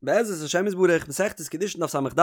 בעזרת השם יתברך, מסכת קידושין דף ס"ד,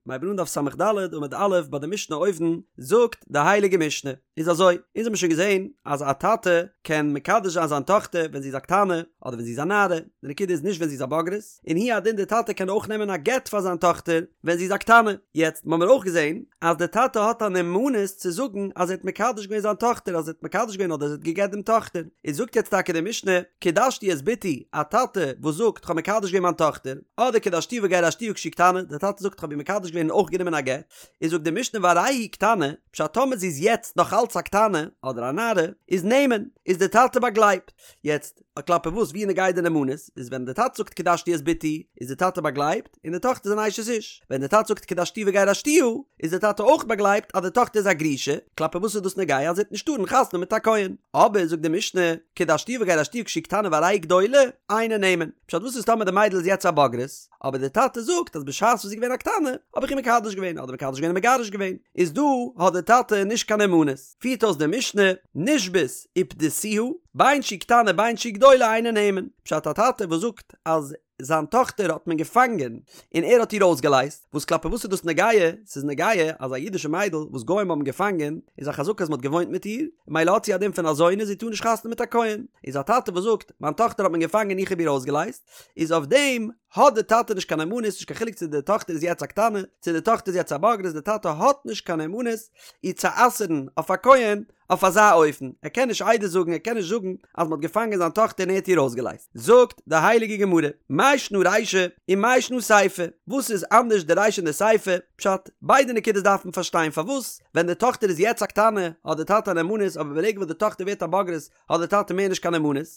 מ'הייבט אן דף ס"ד עמוד א' ביי די משנה אויבן, זאגט די הייליגע משנה, איז אזוי, אונז האבן שוין געזען אז א טאטע קען מקדש זיין זיין טאכטער ווען זי איז א קטנה, אדער ווען זי איז א נערה, די נקודה איז נישט ווען זי איז א בוגרת, און הוא הדין די טאטע קען אויך נעמען א גט פאר זיין טאכטער ווען זי איז א קטנה. יעצט האבן מיר אויך געזען אז די טאטע האט א נאמנות צו זאגן אז ער האט מקדש געווען זיין טאכטער אז ער האט מקדש געווען אדער ער האט גע'גט דעם טאכטער, איז זאגט יעצט טאקע די משנה, קידשתי את בתי, א טאטע וואס זאגט כ'האב מקדש געווען מיין טאכטער, אדער קידשתיה וגירשתיה כשהיא קטנה, די טאטע זאגט כ'האב איר מקדש געווען און אויך גענומען א גט, איז זאגט די משנה והרי היא קטנה, פשט טאמער זי איז יעצט נאך אלץ א קטנה, אדער א נערה, איז נאמן, איז די טאטע באגלייבט. יעצט, כלפי וואס ווי נוגע די נאמנות, איז ווען די טאטע זאגט קידשתי את בתי, איז די טאטע באגלייבט, און די טאכטער איז אן אשת איש. ווען די טאטע זאגט קידשתיה וגירשתיה, איז די טאטע אויך באגלייבט אז די טאכטער איז א גרושה, כלפי וואס איז דאס נוגע אז זי וועט נישט טארן חתונה מיט א כהן. אבער זאגט די משנה, קידשתיה וגירשתיה כשהיא קטנה והרי היא גדולה, אינו נאמן. פשט וואס איז טאמער די מיידל איז יעצט א בוגרת, אבער די טאטע זאגט אז בשעת וואס זי איז געווען א קטנה, האב איך איר מקדש געווען, אדער מקדש געווען און מגרש געווען, איז דא האט די טאטע נישט קיין נאמנות. פירט אויס די משנה, נשבית ופדיתיה, בין שהיא קטנה בין שהיא גדולה אינו נאמן. פשט א טאטע וואס זאגט אז זיין טאכטער האט מען געפאנגען און ער האט איר אויסגעלייזט, וואס כלפי וואס איז דאס נוגע? ס'איז נוגע אז א אידישע מיידל וואס גוים האבן געפאנגען איז א חזקה אז מ'האט געוואוינט מיט איר, ממילא האט זי א דין פון א זונה זי טאר נישט חתונה מיט א כהן. איז א טאטע וואס זאגט מיין טאכטער האט מען געפאנגען איך האב איר אויסגעלייזט, איז אויף דעם האט די טאטע נישט קיין נאמנות, נישט קיין חילוק צו די טאכטער איז יעצט א קטנה צו די טאכטער איז יעצט א בוגרת, די טאטע האט נישט קיין נאמנות איר צו אסר'ן אויף א כהן אויף אזא אופן, ער קען נישט עדות זאגן, ער קען נישט זאגן אז מ'האט געפאנגען זיין טאכטער און ער האט איר אויסגעלייזט. זאגט די הייליגע גמרא, מאי שנא רישא ומאי שנא סיפא, וואס איז אנדערש די רישא און די סיפא? פשט, ביידע נקודות דארף מען פארשטיין, פארוואס ווען די טאכטער איז יעצט א קטנה האט די טאטע א נאמנות אבער ברגע וואס די טאכטער ווערט א בוגרת האט די טאטע מער נישט קיין נאמנות,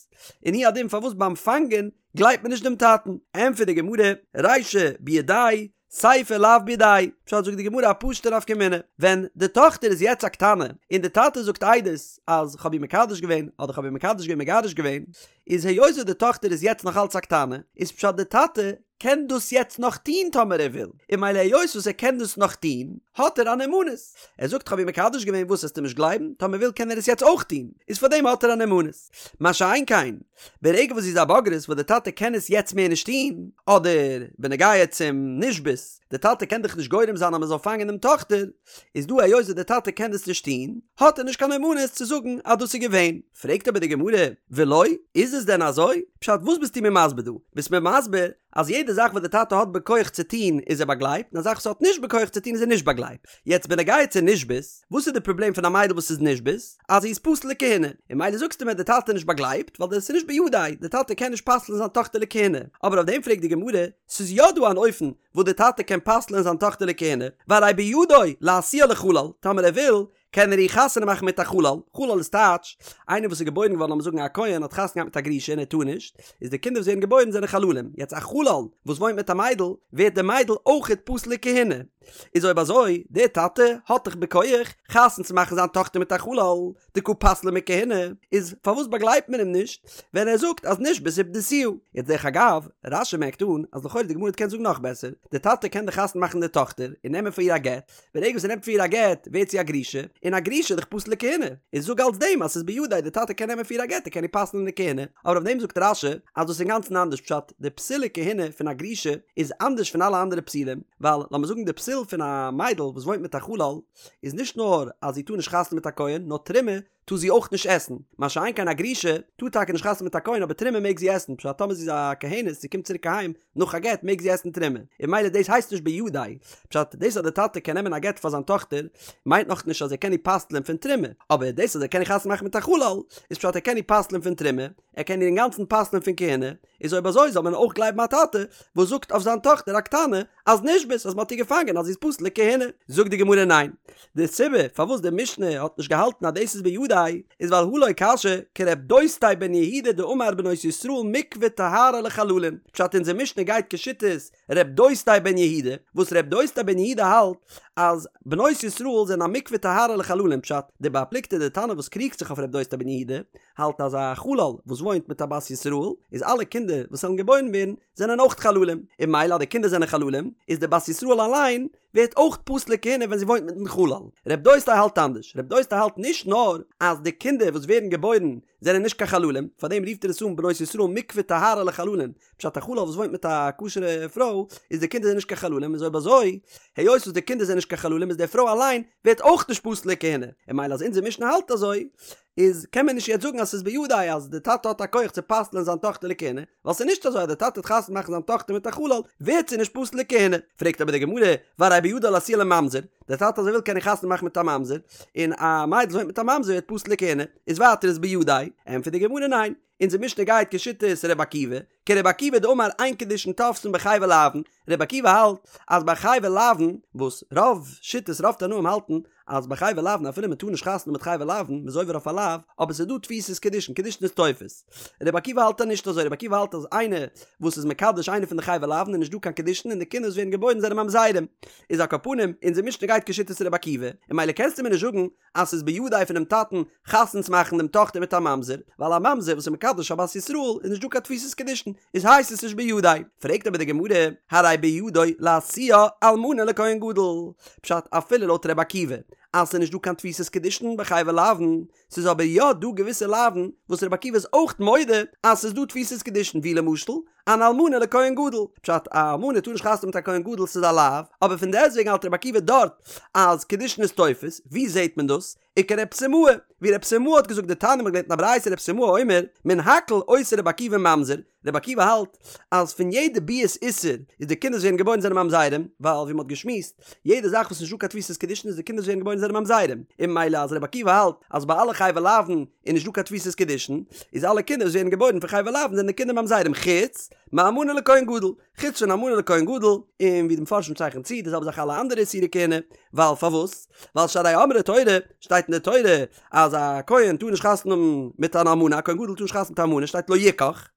און הוא הדין פארוואס ביים פאנגען גלייבט מען נישט דעם טאטן? ענטפערט די גמרא, רישא בידיה סיפא לאו בידיה, פשט זאגט די גמרא א פשוטע נפקא מינה, ווען די טאכטער איז יעצט א קטנה און די טאטע זאגט עדות אז כ'האב איר מקדש געווען אדער כ'האב איר מקדש געווען מגרש געווען, איז היות וואס די טאכטער איז יעצט נאך אלץ א קטנה, איז פשט די טאטע קען דאס יעצט נאך טוהן טאמער ער וויל, און ממילא היות וואס ער קען דאס נאך טוהן האט ער א נאמנות, ער זאגט כ'האב איר מקדש געווען וואס עסטו נישט גלייבן, טאמער וויל קען ער עס יעצט אויך טוהן, איז פארדעם האט ער א נאמנות. מה שאין כן, ברגע וואס זי איז א בוגרת וואס די טאטע קען עס יעצט מער נישט טון, אדער בנוגע צום נשבית, די טאטע קען דאך נישט גורם זיין אז מען זאל פאנגען דעם טאכטער, איז דא היות וואס די טאטע קען דאס נישט טון, האט ער נישט קיין נאמנות צו זאגן אז דאס איז געווען. פרעגט אבער די גמרא, ולא, איז עס דען אזוי? פשט וואס ביסטו מיר מסביר דא? ביסט מיר מסביר אז יעדע זאך וואס די טאטע האט בכח צו טון איז ער באגלייבט, און א זאך וואס ער האט נישט בכח צו טון איז ער נישט באגלייבט. יעצט בנוגע צו נשבית, וואס איז די פראבלעם פון א מיידל וואס איז נשבית? אז זי איז פסול לכהונה. און ממילא זאגסטו מיר די טאטע איז נישט באגלייבט, ווייל דאס איז נישט בידיה, די טאטע קען נישט פסל'ן זיין טאכטער לכהונה. אבער אויף דעם פרעגט די גמרא, ס'איז יא דא אן אופן וואס די טאטע קען פסל'ן זיין טאכטער לכהונה, והרי בידו להשיאה לחלל, טאמער ער וויל, קען ער איר חתונה מאכן מיט א חלל, חלל איז טייטש, איינער וואס איז געבוירן געווארן לאמיר זאגן א כהן האט חתונה געהאט מיט א גרושה און ער טאר נישט, איז די קינדער וואס ווערן געבוירן זענען חללים, יעצט א חלל וואס וואוינט מיט א מיידל, ווערט די מיידל אויכעט פסול לכהונה, איז אויב אזוי, דער טאטע האט דאך בכח חתונה צו מאכן זיין טאכטער מיט א חלל, דקא פסלה מכהונה, איז פארוואס באגלייבט מען אים נישט ווען ער זאגט אז נשבית ופדיתיה? יעצט דרך אגב, רש"י מערקט אן אז לכאורה די גמרא קען זאגן נאך בעסער, די טאטע קען דאך חתונה מאכן די טאכטער און נעמען פאר איר א גט, ברגע וואס ער נעמט פאר איר א גט ווערט זי א גרושה, און א גרושה איז דאך פסול לכהונה, איז זאג אלס דעם אז ס'איז בידיה די טאטע קען נעמען פאר איר א גט ער קען איר פסל'ן לכהונה, אבער אויף דעם זאגט רש"י אז דאס איז אינגאנצן אנדערש פשט, די פסול לכהונה פון א גרושה איז אנדערש פון אלע אנדערע פסולים, ווייל לאמיר זאגן די פסול פון א מיידל וואס וואוינט מיט א חלל איז נישט נאר אז זי טאר נישט חתונה מיט א כהן נאר תרומה טאר זי אויך נישט עסן, מה שאין כן א גרושה טאר טאקע נישט חתונה מיט א כהן אבער תרומה מעג זי עסן, פשט טאמער זי איז א כהנת זי קומט צוריק אהיים נאך א גט מעג זי עסן תרומה, און ממילא דאס הייסט נישט בידיה, פשט דאס אז די טאטע קען נעמען א גט פאר זיין טאכטער מיינט נאך נישט אז ער קען איר פסל'ען פון תרומה, אבער דאס אז ער קען איר חתונה מאכן מיט א חלל איז פשט ער קען איר פסל'ען פון תרומה, ער קען איר אינגאנצן פסל'ען פון כהונה, איז אויב אזוי זאל מען אויך גלייבן א טאטע וואס זאגט אויף זיין טאכטער א קטנה אז נשבית אז מען האט איר געפאנגען אז זי איז פסול לכהונה. זאגט די גמרא ניין, די סיבה פארוואס די משנה האט נישט געהאלטן אז דאס איז בידיה איז ווייל הא לא קשיא כרב דוסתאי בן יהודה דאמר בנות ישראל מקווה טהרה לחללים, פשט אונזער משנה גייט כשיטת ר' דוסתאי בן יהודה, וואס ר' דוסתאי בן יהודה האלט אז בנות ישראל זענען א מקווה טהרה לחללים פשט די בעל פלוגתא די תנא וואס קריגט זיך אויף ר' דוסתאי בן יהודה האלט אז א חלל וואס וואוינט מיט א בת ישראל איז אלע קינדער וואס וועלן געבוירן ווערן זענען אויך חללים און ממילא אז די קינדער זענען חללים איז די בת ישראל אליין. ווערט אויך פסול לכהונה ווען זי וואוינט מיטן חלל. רב דוסתאי האלט אנדערש, רב דוסתאי האלט נישט נאר אז די קינדער וואס ווערן געבוירן זענען נישט קיין חללים, פארדעם רופט ער עס אן בנות ישראל מקווה טהרה לחללים, פשט א חלל וואס וואוינט מיט א כשר'ע פרוי איז די קינדער זענען נישט קיין חללים איז אויב אזוי היות וואס די קינדער זענען נישט קיין חללים איז די פרוי אליין ווערט אויך נישט פסול לכהונה, און ממילא אז אונזער משנה האלט אזוי איז קען מען נישט יעצט זאגן אז ס'איז בידו אז די טאטע האט א כח צו פסל'ען זיין טאכטער לכהונה, ווייל ס'איז נישט אזוי אז די טאטע וועט חתונה מאכן זיין טאכטער מיט א חלל ווערט זי נישט פסול לכהונה. פרעגט אבער די גמרא, והרי בידו להשיאה לממזר, די טאטע אז ער וויל קען איר חתונה מאכן מיט א ממזר, און א מיידל וואס וואוינט מיט א ממזר ווערט פסול לכהונה, איז ווייטער איז בידו, ענטפערט די גמרא ניין, אונזער משנה גייט כשיטת ר' עקיבא, כר' עקיבא דאמר אין קידושין תופסין בחייבי לאוין, ר' עקיבא האלט אז ביי חייבי לאוין, וואס רוב שיטות רוב תנאים האלטן אז ביי חייבי לאוין אפילו מען טאר נישט חתונה מיט חייבי לאוין, מען איז עובר אויף א לאו, אבער ס'איז דא תפיסת קידושין, קידושין איז תופס. ר' עקיבא האלט אז נישט אזוי, ר' עקיבא האלט אז איינער וואס איז מקדש איינער פון די חייבי לאוין איז נישט דא קיין קידושין און די קינדער וואס ווערן געבוירן זענען ממזרים. איז על כל פנים, אונזער משנה גייט כשיטת ר' עקיבא, און ממילא קענסטו מיר נישט זאגן אז ס'איז בידו פונעם טאטן חתונה צו מאכן דעם טאכטער מיט א ממזר, ווייל א ממזר וואס איז מקדש א בת ישראל איז נישט דא קיין תפיסת קידושין, איז הייסט עס נישט בידו. פרעגט אבער די גמרא, הרי בידו להשיאה אלמנה לכהן גדול, פשט אפילו לויט ר' עקיבא אז ס'איז נישט דא קיין תפיסת קידושין ביי חייבי לאוין, ס'איז אבער יא דא געוויסע לאוין וואס ר' עקיבא איז אויך מודה אז ס'איז דא תפיסת קידושין ווי למשל אן אלמנה לכהן גדול, פשט א אלמנה טאר נישט חתונה מיט א כהן גדול ס'איז א לאו, אבער פון דעסטוועגן האלט רבי עקיבא דארט אז קידושין איז תופס, ווי זעהט מען דאס? וכרב סימאי, ווי רב סימאי האט געזאגט דתניא מ'האט געלערנט אין א ברייתא רב סימאי אומר, מן הכל עושה רבי עקיבא ממזר, רבי עקיבא האלט אז פון יעדע ביאת איסור איז די קינדער וואס ווערן געבוירן זענען ממזרים, ווייל ווי מ'האט געשמועסט יעדע זאך וואס איז נישטא קיין תפיסת קידושין איז די קינדער וואס ווערן געבוירן זענען ממזרים, און ממילא אז רבי עקיבא האלט אז ביי אלע חייבי לאוין איז נישט דא קיין תפיסת קידושין, איז אלע קינדער וואס ווערן געבוירן פון חייבי לאוין זענען די קינדער ממזרים חוץ מאלמנה לכהן גדול, חוץ פון אלמנה לכהן גדול, און ווי די מפרשים צייכענען צו די זעלבע זאך אלע אנדערע איסורי כהונה, ווייל פארוואס? ווייל שהרי אמרה תורה, שטייט אין די תורה אז א כהן טאר נישט חתונה האבן מיט אן אלמנה, א כהן גדול טאר נישט חתונה מיט א אלמנה, שטייט לא יקח,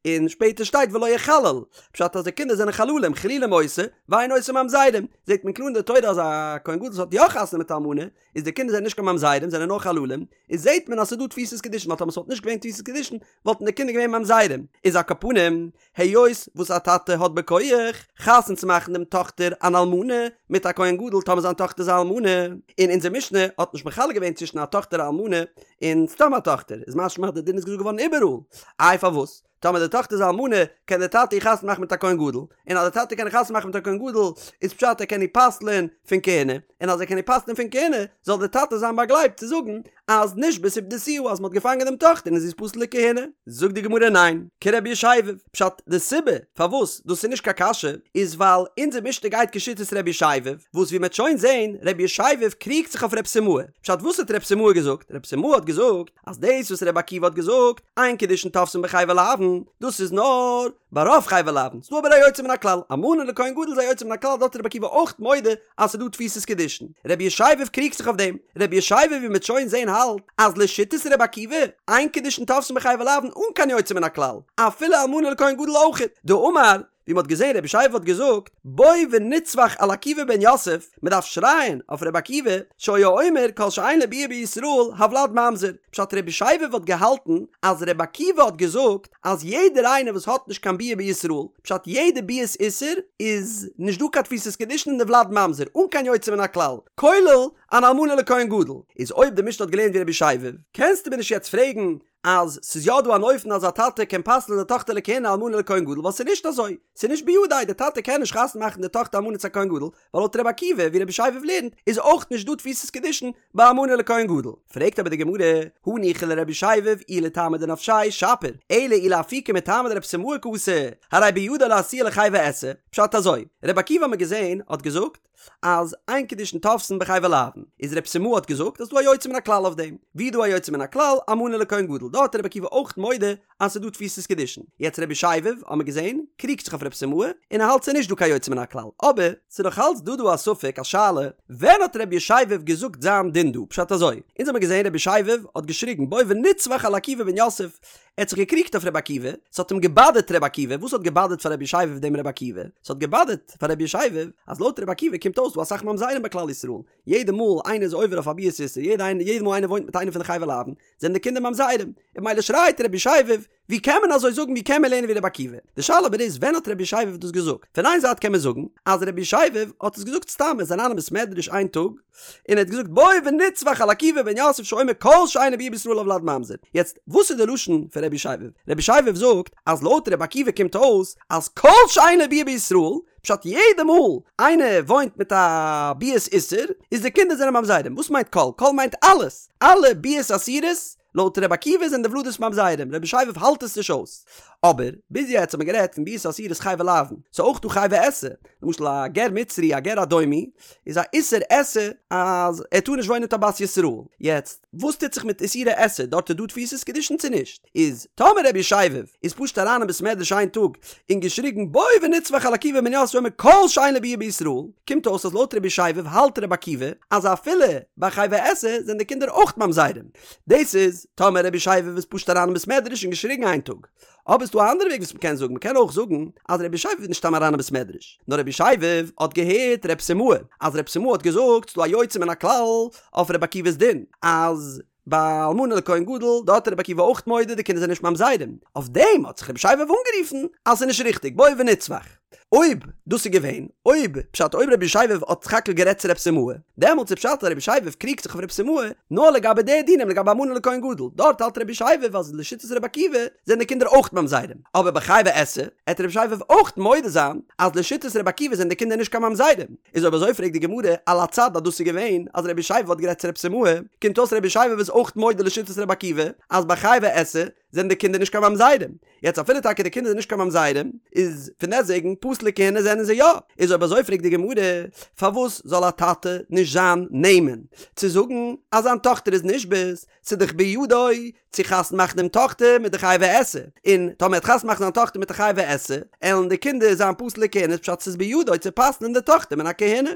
און שפעטער שטייט ולא יחלל, פשט אז די קינדער זענען חללים, חילולים עושה, ואין עושה ממזרים, זעט מען קלאר אין די תורה אז א כהן גדול וואס האט יא חתונה מיט א אלמנה, איז די קינדער זענען נישט קיין ממזרים זענען נאר חללים, איז זעהט מען אז ס'איז דא תפיסת קידושין ווייל טאמער ס'וואלט נישט געווען תפיסת קידושין וואלטן די קינדער געווען ממזרים, איז על כל פנים היות וואס א טאטע האט בכח חתונה צו מאכן דעם טאכטער אן אלמנה מיט א כהן גדול טאמער זיין טאכטער איז א אלמנה, און אונזער משנה האט נישט מחלק געווען צווישן א טאכטער א אלמנה און סתם א טאכטער, איז משמע אז די דין איז געזאגט געווארן איבעראל, איי פארוואס? טאמער די טאכטער איז א אלמנה, קען דער טאטע איר חתונה מאכן מיט א כהן גדול, און אז דער טאטע קען איר חתונה מאכן מיט א כהן גדול, איז פשט ער קען איר פסל'ען פון כהונה, און אז ער קען איר פסל'ען פון כהונה, זאל דער טאטע זיין באגלייבט צו זאגן אז נשבית ופדיתיה אז מען האט געפאנגען דעם טאכטער און זי איז פסול לכהונה. זאגט די גמרא ניין, כרבי ישבב, פשט די סיבה פארוואס דאס איז נישט קיין קשיא, איז ווייל אונזער משנה גייט כשיטת רבי ישבב, וואס ווי מען וועט שוין זען, רבי ישבב קריגט זיך אויף רב סימאי, פשט וואס האט רב סימאי געזאגט? רב סימאי האט געזאגט, אז דאס וואס רבי עקיבא האט געזאגט, אין קידושין תופסין בחייבי לאוין, דאס איז נאר ביי רוב חייבי לאוין, ס'דא אבער א יוצא מן הכלל, אלמנה לכהן גדול איז א יוצא מן הכלל, דארט איז רבי עקיבא אויך מודה אז ס'איז דא תפיסת קידושין. רבי ישבב קריגט זיך אויף דעם, רבי ישבב ווי מ'וועט שוין זעהן האלט אז לשיטת רבי עקיבא, אין קידושין תופסין בחייבי לאוין אן קיין יוצא מן הכלל, אפילו אלמנה לכהן גדול אויכעט, דאמר, ווי מ'האט געזען רבי ישבב האט געזאגט, בוא ונצווח על עקיבא בן יוסף, מ'דארף שרייען אויף רבי עקיבא, שהיה אומר כל שאין לו ביאה בישראל הולד ממזר, פשט רבי ישבב האט געהאלטן אז רבי עקיבא האט געזאגט אז יעדער איינער וואס האט נישט קיין ביאה בישראל, פשט יעדע ביאת איסור איז נישט דא קיין תפיסת קידושין און די ולד ממזר, אן קיין יוצא מן הכלל, כולל אן אלמנה לכהן גדול, איז אויב די משנה האט געלערנט ווי רבי ישבב, קענסטו מיר נישט יעצט פרעגן אז ס'איז יא דא אן אופן אז א טאטע קען פסל'ן די טאכטער לכהונה אלמנה לכהן גדול ווייל ס'איז נישט אזוי, ס'איז נישט בידו, די טאטע קען נישט חתונה מאכן די טאכטער אלמנה צו א כהן גדול, ווייל לויט רבי עקיבא ווי רבי ישבב לערנט איז אויך נישט דא תפיסת קידושין ביי אלמנה לכהן גדול. פרעגט אבער די גמרא, הניחא לרבי ישבב אי לטעמיה דנפשיה שפיר, אלא אי לאפוקי מטעמא דרב סימאי קאתי, הרי בידו להשיאה לחייבי עשה, פשט אזוי, רבי עקיבא האט מען געזען האט געזאגט, אז אין קידושין תופסין בחייבי לאוין, איז רב סימאי האט געזאגט אז ס'דא א יוצא מן הכלל אויף דעם, ווי דא א יוצא מן הכלל, אלמנה לכהן גדול, דארט איז רבי עקיבא אויך מודה אז ס'איז דא תפיסת קידושין, יעצט רבי ישבב האט מען געזען קריגט זיך אויף רב סימאי און ער האלט ס'איז נישט דא קיין יוצא מן הכלל, אבער ס'איז נאך אלץ דא דא א ספק א שאלה, ווען האט רבי ישבב געזאגט זיין דין דא, פשט אזוי, אונז האמיר געזען רבי ישבב האט געשריגן בוא ונצווח על עקיבא בן יוסף, ער האט זיך געקריגט אויף רבי עקיבא, ס'האט אים געבאדערט רבי עקיבא, וואס האט געבאדערט פאר רבי ישבב דעם רבי עקיבא? ס'האט געבאדערט פאר רבי ישבב אז לויט רבי עקיבא קומט. קומט אויס דא אסאך ממזרים ביי כלל ישראל, יעדע מאל איינער איז עובר אויף א ביאת איסור, יעדע מאל איינער וואוינט מיט איינער פון די חייבי לאוין, זענען די קינדער ממזרים, און ממילא שרייט רבי ישבב, ווי קען מען אזוי זאגן ווי קען מען לערנען ווי רבי עקיבא? די שאלה אבער איז ווען האט רבי ישבב דאס געזאגט? פון איין זייט קען מען זאגן אז רבי ישבב האט עס געזאגט סתם ער איז אריין אין בית מדרש איין טאג און ער האט געזאגט בואו ונצווח על עקיבא בן יוסף שאומר כל שאין לו ביאה בישראל הולד ממזר. יעצט וואס איז די לשון פון רבי ישבב? רבי ישבב זאגט אז לויט רבי עקיבא קומט אויס אז כל שאין לו ביאה בישראל פשט יעדע מאל איינער וואוינט מיט א ביאת איסור איז די קינדער זענען ממזרים. וואס מיינט כל? כל מיינט אלעס! אלע ביאות אסורות לויט רבי עקיבא זענען די ולדות ממזרים, רבי ישבב האלט עס נישט אויס. אבער, ביז יעצט האט מען גערעדט פון ביאות אסורות חייבי לאוין, ס'איז אויך דא חייבי עשה, למשל א גר מצרי א גר אדומי, איז א איסור עשה אז ער טאר נישט וואוינען מיט א בת ישראל. יעצט, וואס טוט זיך מיט איסורי עשה, דארט איז דא תפיסת קידושין צו נישט? איז, טאמער רבי ישבב איז פשוט אריין אין בית מדרש איין טאג און געשריגן בואו ונצווח על עקיבא בן יוסף שאומר כל שאין לו ביאה בישראל, קומט אויס אז לויט רבי ישבב האלט רבי עקיבא אז אפילו ביי חייבי עשה זענען די קינדער אויך ממזרים. דאס איז טאמער רבי ישבב איז פשוט אריין אין בית מדרש און געשריגן איין טאג. אבער ס'דא א אנדערע וועג וואס מ'קען זאגן, מ'קען אויך זאגן אז רבי ישבב איז נישט סתם אריין אין בית מדרש, נאר רבי ישבב האט געהערט רב סימאי, אז רב סימאי האט געזאגט ס'דא א יוצא מן הכלל אויף רבי עקיבא'ס דין, אז ביי אלמנה לכהן גדול, דארט איז רבי עקיבא אויך מודה די קינדער זענען נישט ממזרים, אויף דעם האט זיך רבי ישבב אנגערופן אז ס'איז נישט ריכטיג, בואו ונצווח. אויב דאס איז געווען, אויב פשט אויב רבי ישבב האט סך הכל גערעדט צו רב סימאי, דעמאלטס איז פשט אז רבי ישבב קריגט זיך אויף רב סימאי נאר לגבי די דינים לגבי אלמנה לכהן גדול, דארט האלט רבי ישבב אז לשיטת רבי עקיבא זענען די קינדער אויך ממזרים, אבער ביי חייבי עשה עט רבי ישבב אויך מודה זיין אז לשיטת רבי עקיבא זענען די קינדער נישט קיין ממזרים. איז אויב אזוי פרעגט די גמרא על הצד אז דאס איז געווען אז רבי ישבב האט גערעדט צו רב סימאי, קומט אויס רבי ישבב איז אויך מודה לשיטת רבי עקיבא אז ביי חייבי עשה זענען די קינדער נישט קיין ממזרים, יעצט אפילו טאקע די קינדער זענען נישט קיין ממזרים, איז פון דעסטוועגן פסול לכהונה זענען זיי יא, איז אויב אזוי פרעגט די גמרא, פארוואס זאל א טאטע נישט זיין נאמן צו זאגן אז זיין טאכטער איז נשבית, ס'איז דאך בידו צו חתונה מאכן דעם טאכטער מיט די חייבי עשה, און טאמער ער וועט חתונה מאכן זיין טאכטער מיט די חייבי עשה, עלן די קינדער זיין פסול לכהונה, פשט ס'איז בידו צו פסל'ן די טאכטער מן הכהונה.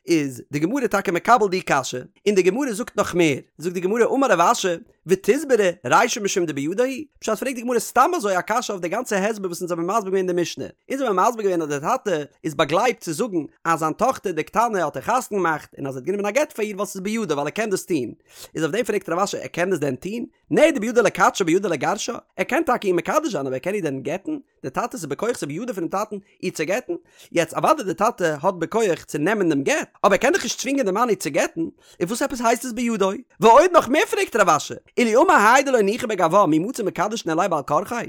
איז די גמרא טאקע מקבל די קשיא, און די גמרא זאגט נאך מער, זאגט די גמרא אמר רב אשי, ותסברא רישא משום דבידו הוא? פשט פרעגט די גמרא סתם אזוי א קשיא אויף די גאנצע הסבר וואס אונז האבן מסביר געווען אין די משנה. אונז האבן מסביר געווען אז די טאטע איז באגלייבט צו זאגן אז זיין טאכטער די קטנה האט ער חתונה געמאכט און אז ער האט גענומען א גט פאר איר ווייל ס'איז בידו ווייל ער קען דאס טון. איז אויף דעם פרעגט רב אשי ער קען דאס דען טון? נהי דבידו לקדשה בידו לגרשה? ער קען טאקע איר מקדש זיין אבער ער קען איר דען גט'ן? די טאטע ס'איז בכח ס'איז בידו פונעם טאטן איר צו גט'ן? יעצט אוודאי די טאטע האט בכח צו נעמען דעם גט, אבער ער קען דאך נישט צווינגען די מאן איר צו גט'ן, און וואס עפעס הייסט עס בידו? ועוד נאך מער פרעגט רב אשי, אילו אמר האי דלא ניחא בגווה מי מצי מקדש ניהליה בעל כרחיה?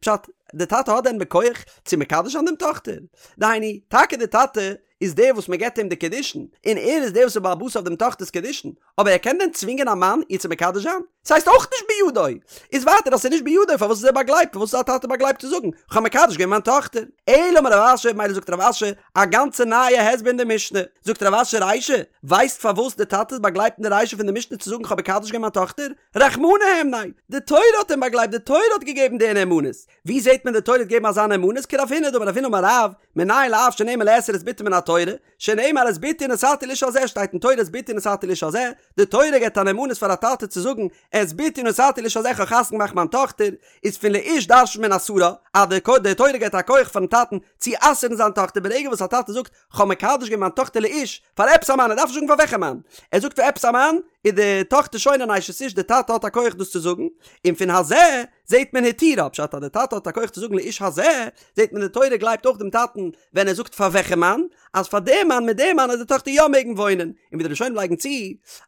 פשט, די טאטע האט דען בכח צו מקדש זיין דעם טאכטער? דהיינו, טאקע די טאטע איז דער וואס מען געבט אים די קידושין, און ער איז דער וואס איז בעל הבית אויף דעם טאכטער'ס קידושין, אבער ער קען דען צווינגען א מאן איר צו מקדש זיין? ס'הייסט אויך נישט בידו! איז ווייטער אז ס'איז נישט בידו פארוואס איז ער באגלייבט? פארוואס איז א טאטע באגלייבט צו זאגן כ'האב מקדש געווען מיין טאכטער? אלא אמר רב אשי, מילא זאגט רב אשי א גאנצע נייע הסבר אין די משנה. זאגט רב אשי רישא, ווייסט פארוואס די טאטע איז באגלייבט אין די רישא פון די משנה צו זאגן כ'האב מקדש געווען מיין טאכטער? רחמנא הימניה! די תורה האט אים באגלייבט, די תורה האט געגעבן די נאמנות! ווי זעט מען די תורה האט געגעבן אזא נאמנות? כרב הונא דאמר רב הונא אמר רב, מנין לאב שנאמן לאסור את בתו מן התורה, שנאמר את בתי נתתי לאיש הזה שטייט אין תורה את בתי נתתי לאיש הזה, די תורה געבט א נאמנות פאר א טאטע צו זאגן את בתי נתתי לאיש הזה כ'האב חתונה געמאכט מיין טאכטער, איז פון לאיש דרש'נט מען אסרה, אז די די תורה געבט א כח פארן טאטן צו אסר'ן זיין טאכטער ברגע וואס א טאטע זאגט כ'האב מקדש געווען מיין טאכטער לאיש פאר עפעס א מאן ער דארף נישט זאגן פאר וועלכע מאן, ער זאגט פאר עפעס א מאן, איז די טאכטער שוין אן אשת איש די טאטע האט א כח דאס צו זאגן, און פון הזה זעט מען התירה, פשט אז די טאטע האט א כח צו זאגן לאיש הזה, זעט מען די תורה גלייבט אויך דעם טאטן ווען ער זאגט פאר וועלכע מאן, אז פאר דעם מאן מיט דעם מאן וועט די טאכטער יא מעגן וואוינען, און ווי די ראשונים לייגן צו,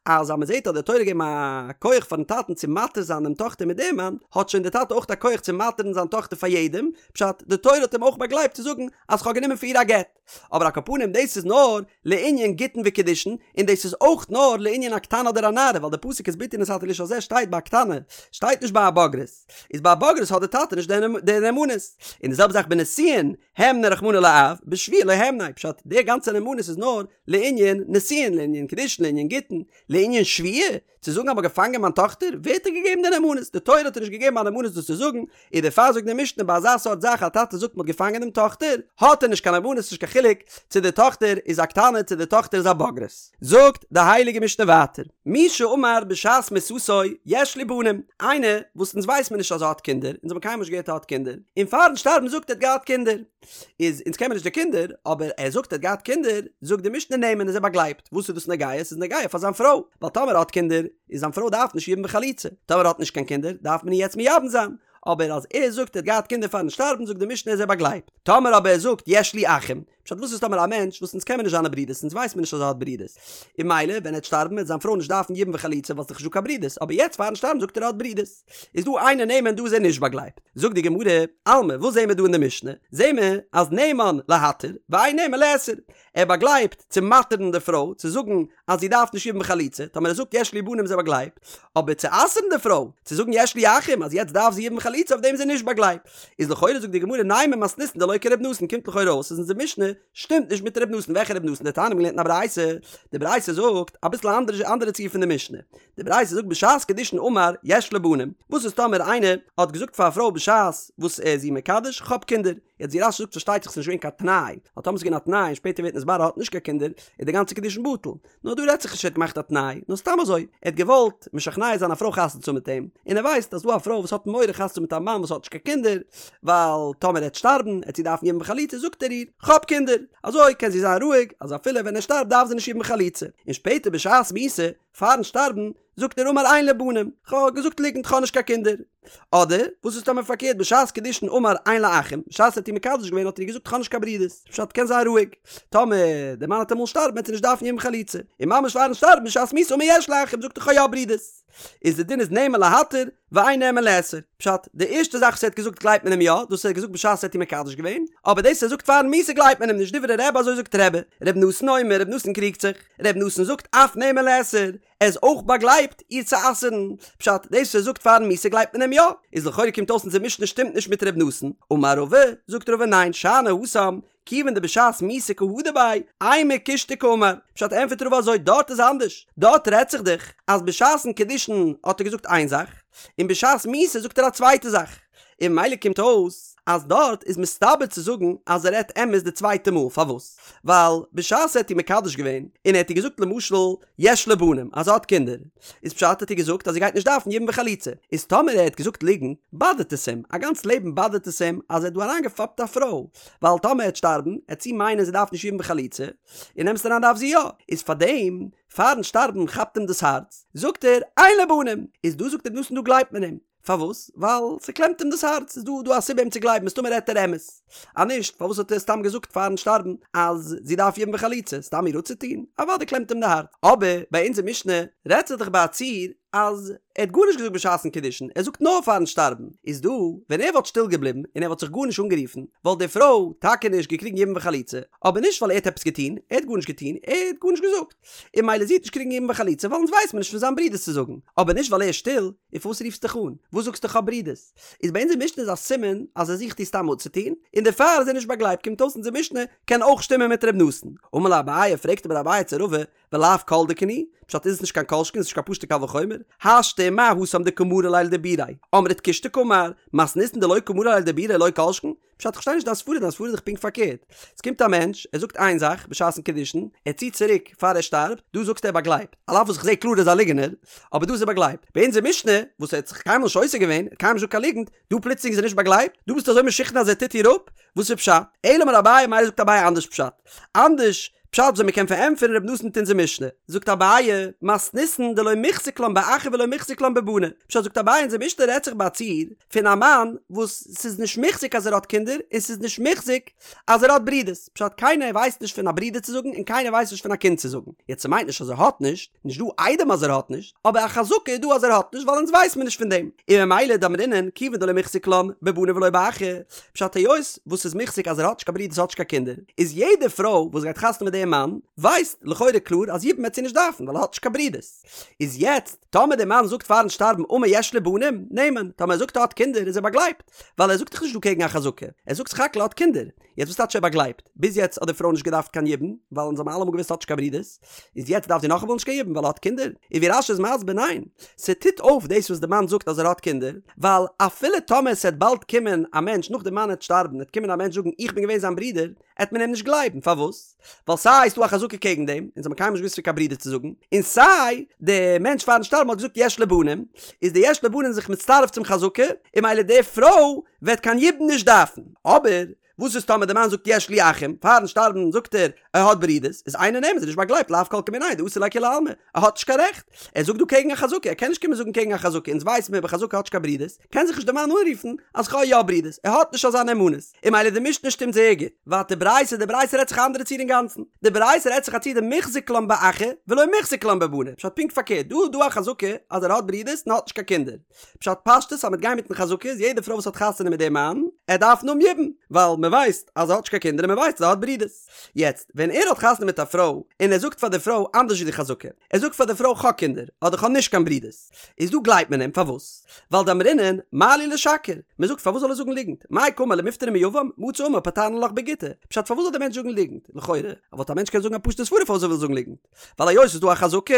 אז אז מען זעט אז די תורה געבן א כח פארן טאטן צו מתיר זיין דעם טאכטער מיט דעם מאן, האט שוין די טאטע אויך א כח צו מתיר'ן זיין טאכטער פאר יעדעם, פשט, די תורה האט אים אויך באגלייבט צו זאגן אז כ'האב גענומען פאר איר א גט. אבער על כל פנים דאס איז נאר לענין גיטין וקידושין, און דאס איז אויך נאר לענין א קטנה אדער א נערה, ווייל די פסוק את בתי נתתי לאיש הזה שטייט ביי א קטנה, שטייט נישט ביי א בוגרת, איז ביי א בוגרת האט די טאטע נישט די נאמנות. און די זעלבע זאך בנישואין, הימניה רחמנא לאב, בשבועה לא הימניה, פשט, די גאנצע נאמנות איז נאר לענין נישואין, לענין קידושין, לענין גיטין, לענין שבויה, צו זאגן אז מ'האט געפאנגען מיין טאכטער, ווער האט איר געגעבן די נאמנות? די תורה האט איר נישט געגעבן א נאמנות דאס צו זאגן, און דערפאר זאגט די משנה ביי אזא סארט זאך א טאטע זאגט מ'האט געפאנגען דעם טאכטער, האט ער נישט קיין נאמנות, נישט קיין חילוק. חילוק צו די טאכטער איז א קטנה צו די טאכטער איז א בוגרת. זאגט די הייליגע משנה ווייטער, מי שאמר בשעת מיתתו יש לי בנים, איינער וואס אונז ווייס מיר נישט אז ער האט קינדער, אונז האבן קיינמאל נישט געהערט ער האט קינדער, און פארן שטארבן זאגט ער האט געהאט קינדער, איז אונז קען מיר נישט די קינדער, אבער ער זאגט ער האט געהאט קינדער, זאגט די משנה נאמן איז ער באגלייבט, וואס איז דאס נוגע? עס איז נוגע פאר זיין פרוי, ווייל טאמער ער האט קינדער, איז זיין פרוי דארף נישט יבום וחליצה, טאמער ער האט נישט קיין קינדער, דארף מען איר יעצט מייבם זיין, אבער אז ער זאגט ער האט געהאט קינדער פארן שטארבן זאגט די משנה איז ער באגלייבט, טאמער אבער ער זאגט יש לי אחים, פשט וואס איז טאמער א מענטש וואס אונז קען מיר נישט זיינע ברידערס אונז ווייס מיר נישט אז ער האט ברידערס, און ממילא ווען ער וועט שטארבן וועט זיין פרוי נישט דארפן יבום וחליצה ווייל ס'איז דאך נישט דא קיין ברידערס, אבער יעצט פארן שטארבן זאגט ער ער האט ברידערס, איז דא אינו נאמן דא איז ער נישט באגלייבט. זאגט די גמרא, אלמא וואס זעהן מיר דא אין די משנה? זעהן מיר אז נאמן להתיר ואין נאמן לאסור, ער באגלייבט צו מתיר'ן די פרוי צו זאגן אז זי דארף נישט יבום וחליצה, טאמער ער זאגט יש לי בנים איז ער באגלייבט, אבער צו אסר'ן די פרוי צו זאגן יש לי אחים אז יעצט דארף זי יבום וחליצה אויף דעם איז ער נישט באגלייבט. איז לכאורה זאגט די גמרא נימא מתניתין דלא כר' נתן קומט לכאורה אויס אז אונזער משנה שטימט נישט מיט ר' נתן, וועלכע ר' נתן? דתניא מ'האט געלערנט אין א ברייתא, די ברייתא זאגט אביסל א אנדערע אנדערע ציור פון די משנה, די ברייתא זאגט בשעת קידושין אמר יש לי בנים, וואס איז טאמער איינער האט געזאגט פאר א פרוי בשעת וואס ער איז איר מקדש כ'האב קינדער, יעצט ווי רש"י זאגט פארשטייט זיך ס'איז נישט געווען קיין תנאי, ווייל טאמער ס'איז געווען א תנאי און שפעטער ווערט נתברר ער האט נישט קיין קינדער איז די גאנצע קידושין בטל, נאר דא רעדט זיך נישט ער האט געמאכט א תנאי, נאר סתם אזוי, ער האט געוואלט משכנע זיין א פרוי חתונה צו האבן מיט אים, און ער ווייסט אז דא א פרוי וואס האט מורא חתונה צו האבן מיט א מאן וואס האט נישט קיין קינדער, ווייל טאמער ער וועט שטארבן עט זי דארפן יבום וחליצה, זאגט ער איר, כ'האב קינדער, אזוי קען זי זיין רואיג אז אפילו ווען ער שטארבט דארף זי נישט יבום וחליצה, און שפעטער בשעת מיתה, פארן שטארבן, זאגט ער אמר אין לי בנים, כ'האב געזאגט ליגנט כ'האב נישט קיין קינדער. אדער, וואס איז טאמער פארקערט בשעת קידושין אמר אין לי אחים, בשעת ער האט איר מקדש געווען האט ער איר געזאגט כ'האב נישט קיין ברידערס, פשט קען זיין רואיג, טאמער דער מאן וועט אמאל שטארבן וועט זי נישט דארפן יבום וחליצה, און ממש פארן שטארבן בשעת מיתה אמר יש לי אחים זאגט ער כ'האב יא ברידערס. איז די דין איז נאמן להתיר ואין נאמן לאסור. פשט, די ערשטע זאך וואס ער האט געזאגט גלייבט מען אים יא, דאס ער האט געזאגט בשעת ער האט איר מקדש געווען, אבער דאס ער זאגט פארן מיתה גלייבט מען אים נישט, דברי רבי אזוי זאגט רבי, ר' נתן אומר, ר' נתן קריגט זיך, ר' נתן זאגט אף נאמן לאסור, ער איז אויך באגלייבט איר צו אסר'ן, פשט, דאס וואס ער זאגט פארן מיתה גלייבט מען אים יא, איז לכאורה קומט אויס אונזער משנה שטימט נישט מיט ר' נתן, אמר רבא, זאגט רבא ניין, שאני התם, כיוון דבשעת מיתה קא הדר ביה, אימא קושטא קאמר, פשט ענפערט רבא אזוי דארט איז אנדערש, דארט רעדט זיך דאך אז בשעת'ן קידושין האט ער געזאגט איין זאך, און בשעת מיתה זאגט ער א צווייטע זאך, און ממילא קומט אויס אז דארט איז מסתבר צו זאגן אז ער רעדט אמת די צווייטע מאל, פארוואס? ווייל בשעת ער האט איר מקדש געווען און ער האט איר געזאגט למשל יש לי בנים אז ער האט קינדער, איז פשט האט איר געזאגט אז זי גייט נישט דארפן יבום וחליצה, איז טאמער ער האט געזאגט ליגנט באדערט עס אים, א גאנץ לעבן באדערט עס אים אז ער האט דא אריינגעפאפט א פרוי, ווייל טאמער ער וועט שטארבן עט זי מיינען זי דארף נישט יבום וחליצה, אין אמת'ן אריין דארף זי יא, איז פארדעם פארן שטארבן כאפט אים דאס הארץ, זאגט ער אין לי בנים, איז דא זאגט ר' נתן דא גלייבט מען אים. פארוואס? ווייל ס'קלעמט אים דאס הארץ, איז דא דא א סיבה אים צו גלייבן, מסתמא רעדט ער אמת. אז נישט, פארוואס האט ער סתם געזאגט פארן שטארבן אז זי דארף יבום וחליצה? סתם איר אפצוטון? אוודאי קלעמט אים די הארץ. אבער ביי אונזער משנה רעדט זיך דאך ביי א ציור אז ער האט גארנישט געזאגט בשעת'ן קידושין, ער זאגט נאר פארן שטארבן. איז דא, ווען ער וואלט שטיל געבליבן און ער וואלט זיך גארנישט אנגערופן, וואלט די פרוי טאקע נישט געקריגן יבום וחליצה, אבער נישט ווייל ער האט עפעס געטון, ער האט גארנישט געטון, ער האט גארנישט געזאגט. און ממילא זי וועט נישט קריגן יבום וחליצה ווייל אונז ווייסט מען נישט פון זיין ברידערס צו זאגן, אבער נישט ווייל ער איז שטיל, און פארוואס רופסט דיך אן? וואס זאגסטו כ'האב ברידערס? איז ביי אונזער משנה איז א סימן אז ער זוכט איר סתם אפצוטון, און דערפאר איז ער נישט באגלייבט קומט אויס אונזער משנה קען אויך שטימען מיט ר' נתן. אמר ליה אביי פרעגט אבער אביי צו רבא ולאו כל דכן הוא? פשט איז עס נישט קיין כל שכן איז נישט קיין פשוטע קל וחומר? השתא ומה התם דקא מרי ליה לדיבוריה אמרת קושטא קאמר, מתניתין דלא קא מרי ליה לדיבוריה לא כל שכן? פשט איך פארשטיי נישט דיין סברא, דיין סברא איז דאך פונקט פארקערט. עס קומט א מענטש, ער זאגט איין זאך בשעת'ן קידושין, ער ציט צוריק פאר ער שטארבט, דא זאגסטו ער באגלייבט, על אף וואס איך זעה קלאר ער איז א ליגענער, אבער דא איז ער באגלייבט. ביי אונזער משנה, וואס ער האט זיך קיינמאל נישט עוסק געווען, ער האט קיינמאל נישט געזאגט קיין ליגנט, דא פלוצלינג איז ער נישט באגלייבט? דא ביסטו אזוי משוכנע אז ער טוט איר אפ? וואס איז פשט? אלא אמר אביי, מילא זאגט אביי אנדערש פשט. אנדערש פשט וויאזוי מ'קען פארענטפערן ר' נתן מיט אונזער משנה. זאגט אביי, מתניתין דלא מוחזק לן באחי ולא מוחזק לן בבני. פשט זאגט אביי אונזער משנה רעדט זיך ביי א ציור פון א מאן וואס ס'איז נישט מוחזק אז ער האט קינדער און ס'איז נישט מוחזק אז ער האט ברידערס. פשט קיינער ווייסט נישט פון א ברודער צו זאגן און קיינער ווייסט נישט פון א קינד צו זאגן. יעצט ס'מיינט נישט אז ער האט נישט, נישט דא עדים אז ער האט נישט, אבער א חזקה איז דא אז ער האט נישט ווייל אונז ווייס מיר נישט פון דעם. און ממילא דאמרינן כיוון דלא מוחזק לן בבני ולא באחי, פשט היות וואס ס'איז מוחזק אז ער האט נישט קיין ברידערס האט נישט קיין קינדער, איז יעדע פרוי וואס גייט חתונה מיט דעם מאן ווייסט לכאורה קלאר אז יבום וועט זי נישט דארפן ווייל ער האט נישט קיין ברידערס. איז יעצט טאמער דער מאן זאגט פארן שטארבן אמר יש לי בנים, נאמן, טאמער ער זאגט ער האט קינדער איז ער באגלייבט, ווייל ער זאגט דאך נישט דא קעגן א חזקה, ער זאגט סך הכל ער האט קינדער. יעצט וואס טייטש ער באגלייבט? ביז יעצט האט די פרוי נישט געדארפט קיין יבום, ווייל אונז האבן אלעמאל געוואוסט האט נישט קיין ברודערס, איז יעצט דארף זי נאכאמאל נישט קיין יבום ווייל ער האט קינדער? און ווי רש"י איז מסביר ניין, ס'טוט אויף דאס וואס די מאן זאגט אז ער האט קינדער, ווייל אפילו טאמער ס'עט באלד קומען א מענטש נאך די מאן עט שטארבן עט קומען א מענטש זאגן איך בין געווען זיין ברודער, עט מען אים נישט גלייבן, פארוואס? ווייל סיי איז דא א חזקה קעגן דעם, אונז האבן קיינמאל נישט געוואוסט פון קיין ברודער צו זאגן, און סיי די מענטש פארן שטארבן האט געזאגט יש לי בנים, איז די יש לי בנים זיך מצטרף צום חזקה, און ממילא די פרוי וועט קיין יבום נישט דארפן. אבער וואס איז טאמער די מאן זאגט יש לי אחים, פארן שטארבן זאגט ער ער האט ברידערס, איז אינו נאמן, איז נישט באגלייבט לאו כל כמיניה דאסר לכולי עלמא, ער האט נישט קיין רעכט, ער זאגט דא קעגן א חזקה, ער קען נישט קומען זאגן קעגן א חזקה, אונז ווייסן מיר בחזקה האט נישט קיין ברידערס, קען זיך נישט די מאן אנרופן אז כ'האב יא ברידערס, ער האט נישט אזא נאמנות, און ממילא די משנה שטימט זייער גוט. ווייטער ברייתא, די ברייתא רעדט זיך א אנדערע ציור אינגאנצן, די ברייתא רעדט זיך א ציור דמוחזק לן באחי ולא מוחזק לן בבני, פשט פונקט פארקערט, דא איז דא א חזקה אז ער האט ברידערס און האט נישט קיין קינדער, פשט פשטות אז מ'וועט גיין מיטן חזקה איז יעדע פרוי וואס האט חתונה מיט דעם מאן, ער דארף האבן יבום, ווייל מ'ווייסט אז ער האט נישט קיין קינדער און מ'ווייסט אז ער האט ברידערס. יעצט, ווען ער האט חתונה מיט א פרוי, און ער זאגט פאר די פרוי אנדערש ווי די חזקה, ער זאגט פאר די פרוי כ'האב קינדער, אדער כ'האב נישט קיין ברידערס, איז דא גלייבט מען אים, פארוואס? ווייל דאמרינן מה לי לשקר, מ'זאגט פארוואס זאל ער זאגן ליגנט, מאי קאמר למיפטרה מיבם, מצי אמר פטרנא לך בגיטא, פשט פארוואס זאל דער מענטש זאגן ליגנט, לכאורה, וואלט א מענטש קענען זאגן א פשוטע סברא פארוואס ער וויל זאגן ליגנט, ווייל היות ס'איז דא א חזקה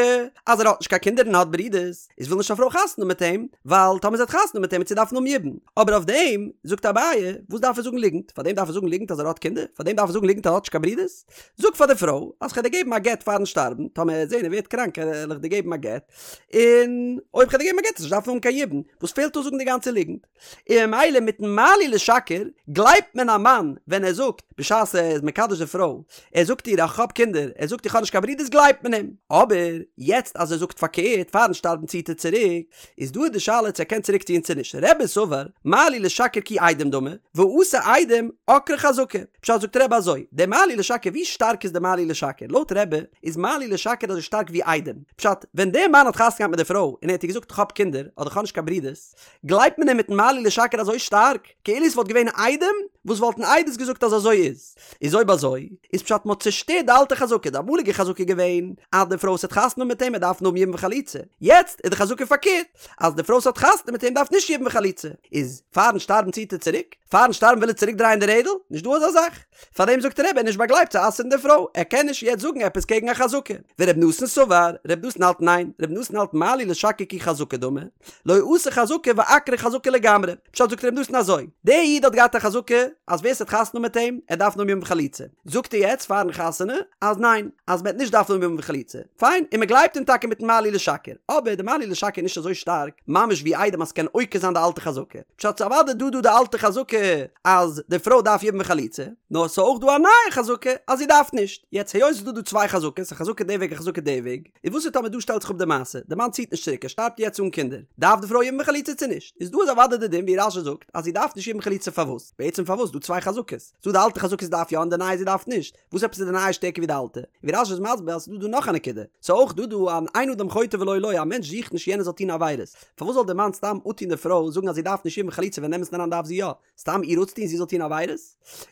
אז ער האט נישט קיין קינדער און האט ברידערס, איז וויל נישט א פרוי חתונה מיט אים, ווייל טאמער זי האט חתונה מיט אים וועט זי דארפן האבן יבום. אבער אויף דעם זאגט אביי, וואס דארף ער זאגן ליגנט? פאר דעם דארף ער זאגן ליגנט אז ער האט קינדער? פאר דעם דארף ער זאגן ליגנט אז ער האט נישט קיין ברידערס? זאג פאר די פרוי אז כ'וועל דיר געבן א גט פארן שטארבן, טאמער ער וועט זען ער ווערט קראנק וועל איך דיר געבן א גט, און אויב כ'וועל דיר געבן א גט וועסטו נישט דארפן האבן קיין יבום, וואס פעלט אויס זאגן די גאנצע ליגנט? און ממילא מיטן מה לי לשקר גלייבט מען א מאן ווען ער זאגט בשעת ער איז מקדש די פרוי, ער זאגט איר איך האב קינדער, ער זאגט איך האב נישט קיין ברידערס גלייבט מען אים, אבער יעצט אז ער זאגט פארקערט פארן שטארבן ציט ער צוריק, איז דא די שאלה צו ער קען צוריק ציען צו נישט, רבי סבר מה לי לשקר כי עדים דמי, ואתו עדים עקרה חזקה, פשט זאגט רבי אזוי, די מה לי לשקר ווי שטארק איז די מה לי לשקר, לויט רבי איז מה לי לשקר אזוי שטארק ווי עדים, פשט ווען דער מאן האט חתונה געהאט מיט די פרוי און ער האט איר געזאגט איך האב קינדער אדער איך האב נישט קיין ברידערס, גלייבט מען אים מיטן מה לי לשקר אזוי שטארק, כאילו עס וואלט געווען עדים וואס וואלטן עדות געזאגט אז אזוי איז. איז אויב אזוי, איז פשט מ'האט צושטערט די אלטע חזקה, די אמאליגע חזקה איז געווען אז די פרוי וואס האט חתונה מיט אים ער דארף האבן יבום וחליצה, יעצט איז די חזקה פארקערט, אז די פרוי וואס האט חתונה מיט אים דארף נישט יבום וחליצה, איז פארן שטארבן ציט ער צוריק? פארן שטארבן וויל ער צוריק דרייען די רעדל? נישט דא אזא זאך. פארדעם זאגט רבי ער איז נישט באגלייבט צו אסר'ן די פרוי, ער קען נישט יעצט זאגן עפעס קעגן א חזקה. ור' נתן סבר, ר' נתן האלט ניין, ר' נתן האלט מה לי לשקר כי חזקה דמי, לא אתא חזקה ועקרה חזקה לגמרי. פשט זאגט ר' נתן אזוי, דער איד האט געהאט א חזקה אז ווער ס'האט חתונה מיט אים, ער דארף האבן יבום וחליצה. זאגט ער יעצט פארן חתונה אז ניין, אז מ'עט נישט דארפן האבן יבום וחליצה. פיין, און מ'גלייבט אים טאקע מיטן מה לי לשקר. אבער די מה לי לשקר איז נישט אזוי שטארק ממש ווי עדים אז ס'קען עוקר זיין די אלטע חזקה. פשט ס'איז אוודאי דא דא די אלטע חזקה אז די פרוי דארף יבום וחליצה, נאר ס'איז אויך דא א נייע חזקה אז זי דארף נישט. יעצט היות ס'איז דא דא צוויי חזקות, א חזקה די וועג א חזקה די וועג, איז וואס איז טאמער דא שטעלט זיך אפ די מעשה, די מאן ציט נישט צוריק ער שטארבט יעצט אן קינדער, דארף די פרוי יבום וחליצה צו נישט? איז דא איז אוודאי די דין ווי רש"י זאגט אז זי דארף נישט יבום וחליצה פארוואס? בעצם פארוואס? דא צוויי חזקות, ס'דא די אלטע חזקה זי דארף יא און די נייע זי דארף נישט, וואס עפעס איז די נייע שטערקער ווי די אלטע? ווי רש"י איז מסביר אז ס'איז דא דא נאך א נקודה, ס'איז אויך דא דא אן אין אדם חוטא ולא לו, א מענטש זוכט נישט יענער זאל טון עבירות, פארוואס זאל די מאן סתם אפטון די פרוי זאגן אז זי דארף נישט יבום וחליצה ווען אין אמת'ן אריין דארף זי יא? סתם איר אפצוטון זי זאל טון עבירות?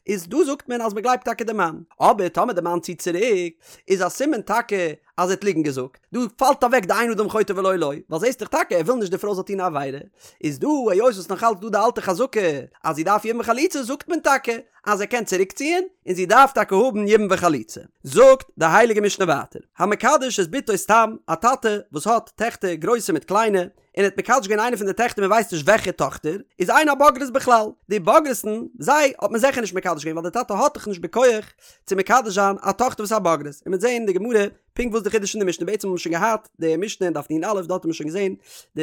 איז דא זאגט מען אז מ'גלייבט טאקע די מאן, אבער טאמער די מאן ציט צוריק איז א סימן טאקע אז ער האט ליגנט געזאגט, דא פאלט אוועק די אין אדם חוטא ולא לו, ווייל זעסט דאך טאקע ער וויל נישט די פרוי זאל טון א עבירה, איז דא היות וואס נאך אלץ דא די אלטע חזקה אז זי דארף יבום וחליצה זאגט מען טאקע אז ער קען צוריק ציען און זי דארף טאקע האבן יבום וחליצה. זאגט די הייליגע משנה ווייטער, המקדש את בתו סתם, א טאטע וואס האט טעכטער גרויסע מיט קליינע, און ער האט מקדש געווען איינע פון די טעכטער מען ווייסט נישט וועלכע טאכטער, איז אין הבוגרות בכלל, די בוגרת'ן, זיי האט מען זיכער נישט מקדש געווען ווייל די טאטע האט דאך נישט בכח צו מקדש זיין א טאכטער וואס איז א בוגרת, און מ'וועט זעהן אין די גמרא פונקט וואס די חידוש אין די משנה, בעצם האט מען שוין געהאט די משנה אין דף נ"א, דארט האט מען שוין געזעהן די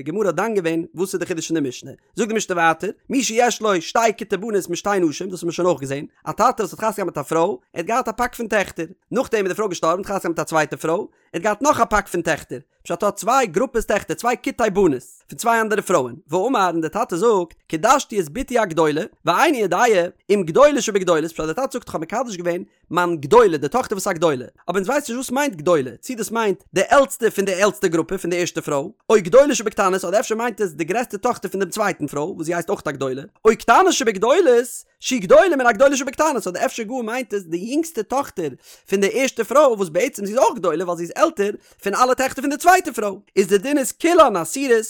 גמרא האט דן געווען וואס איז די חידוש אין די משנה, זאגט די משנה ווייטער, מי שיש לו שתי כיתי בנות משתי נשים, דאס האט מען שוין אויך געזעהן, א טאטע וואס האט חתונה געהאט מיט א פרוי, ער האט געהאט א פאק פון טעכטער, נאכדעם איז די פרוי געשטארבן, האט חתונה געהאט מיט א צווייטע פרוי, ער האט געהאט נאך א פאק פון טעכטער, פשט ער האט צוויי גרופעס טעכטער, צוויי כיתי בנות, פון צוויי אנדערע פרויען, ואמר און דער טאטע זאגט, קידשתי את בתי הגדולה, ואיני יודע אם גדולה שבגדולות, פשט דער טאטע זאגט איך האב מקדש געווען מיין גדולה, די טאכטער וואס איז א גדולה, אבער אונז ווייסן נישט וואס מיינט גדולה, צי דאס מיינט די עלטסטע פון די עלטסטע גרופע פון די ערשטע פרוי, או גדולה שבקטנות, אדער אפשר מיינט עס די גרעסטע טאכטער פון דעם צווייטן פרוי, וואס זי הייסט אויך א גדולה, או קטנה שבגדולות. שהיא גדולה מן הגדולה שבקטנות, אדער אפשר גאר מיינט עס די יונגסטע טאכטער פון די ערשטע פרוי וואס בעצם זי איז אויך גדולה ווייל זי איז עלטער פון אלע טעכטער פון די צווייטע פרוי, איז די דין איז כולן אסורות,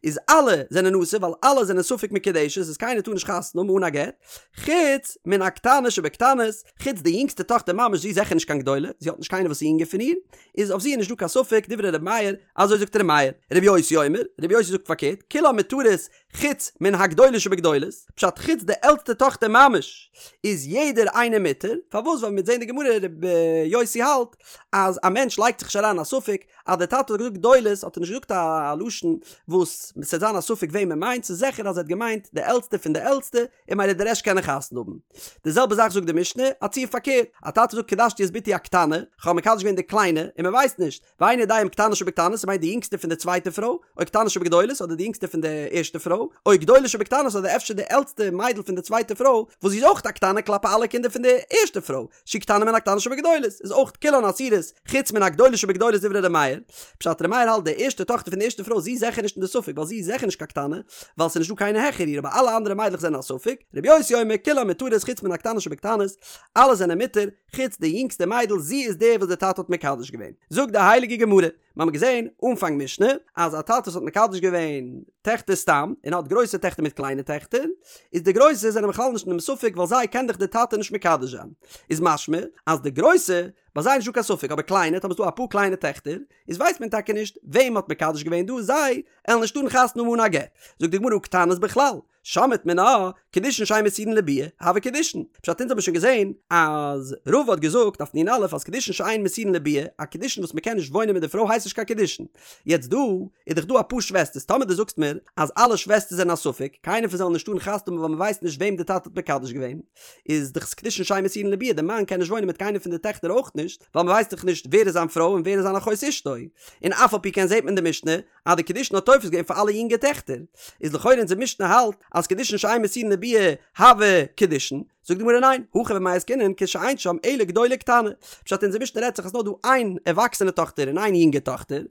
איז אלע זענען אסור ווייל אלע זענען ספק מקודשת איז קיינער טאר נישט חתונה האבן אן א גט, חוץ מן הקטנה שבקטנות, חוץ די יונגסטע טאכטער ממש זי איז זיכער נישט קיין גדולה, זי האט נישט קיינער וואס איז יונגער פון איר, איז אויף זי איז נישט דא קיין ספק, דברי ר' מאיר, אזוי זאגט ר' מאיר. ר' יוסי אומר, ר' יוסי זאגט פארקערט, כולן מותרות חוץ מן הגדולה שבגדולות, פשט חוץ די עלטסטע טאכטער ממש איז יעדער איינער מותר, פארוואס ווייל מ'וועט זען די גמרא ר' יוסי האלט אז א מענטש לייגט זיך נישט אריין א ספק אז דער טאטע האט געזאגט גדולות האט ער נישט געזאגט א לשון וואס ס'וועט זיין א ספק וועם ער מיינט, ס'איז זיכער אז ער האט געמיינט די עלטסטע פון די עלטסטע, און ממילא די רעשט קענען חתונה האבן. די זעלבע זאך זאגט די משנה, א ציור פארקערט, א טאטע זאגט קדשתי את בתי הקטנה, כ'האב מקדש געווען די קליינע, און מ'ווייסט נישט, ואינו יודע אם קטנה שבקטנות, ס'מיינט די יונגסטע פון די צווייטע פרוי, או קטנה שבגדולות, אדער די יונגסטע פון די ערשטע פרוי, או גדולה שבקטנות, אדער אפשר די עלטסטע מיידל פון די צווייטע פרוי, וואס זי איז אויך א קטנה כלפי אלע קינדער פון די ערשטע פרוי, שהיא קטנה מן הקטנה שבגדולות, איז אויך כולן אסורות, חוץ מן הגדולה שבגדולות דברי ר' מאיר. פשט ר' מאיר האלט די ערשטע טאכטער פון די ערשטע פרוי זי איז זיכער נישט אין די ספק ווייל זי איז זיכער נישט קיין קטנה, ווייל ס'איז נישט דא קיינער העכער איר אבער אלע אנדערע מיידלעך זענען א ספק, ר' יוסי אומר כולן מותרות חוץ מן הקטנה שבקטנות, אלע זענען מותר, חוץ די יונגסטע מיידל זי איז די וואס די טאטע האט מקדש געווען. זאגט די הייליגע גמרא, מיר האבן געזען אנפאנג משנה אז א טאטע וואס האט מקדש געווען טעכטער סתם און האט גרויסע טעכטער מיט קליינע טעכטער, איז די גרויסע זענען בכלל נישט אינעם ספק ווייל זיי קען דאך די טאטע נישט מקדש זיין, איז משמע אז די גרויסע, ביי זיי איז נישטא קיין ספק, אבער קליינע, טאמער ס'דא אפאר קליינע טעכטער, איז ווייסט מען טאקע נישט וועם מ'האט מקדש געווען דא, זיי עלן נישט טארן חתונה האבן אן א גט. זאגט די גמרא הא קטנות בכלל, שמעת מינה, קידושין שאין מסורין לביאה, הוו קידושין. פשט אונז האבן שוין געזען אז רבא האט געזאגט אויף נ"א אז קידושין שאין מסורין לביאה, א קידושין וואס מ'קען נישט וואוינען מיט די פרוי הייסט נישט קיין קידושין. יעצט דא איז דאך דא אפאר שוועסטערס, טאמער דו זאגסט מיר אז אלע שוועסטערס זענען א ספק, קיינער פון זיי זאל נישט טארן חתונה האבן ווייל מ'ווייסט נישט וועם די טאטע האט מקדש געווען, איז דאך קידושין שאין מסורין לביאה, די מאן קען נישט וואוינען מיט קיינער פון די טעכטער אויך נישט, ווייל מ'ווייסט דאך נישט ווער איז זיין פרוי און ווער איז זיין אחות אשתו. און אף על פי כן זעט מען אין די משנה אז די קידושין האט תופס געווען פאר אלע יונגע טעכטער, איז לכאורה אונזער משנה האלט אז קידושין שאין מסורין לביאה הוו קידושין, זאגט די גמרא ניין, הכא במאי עסקינן כשאין שם אלא גדולה וקטנה, פשט אונזער משנה רעדט זיך אז נאר דא איין ערוואקסענע טאכטער און איין יונגע טאכטער,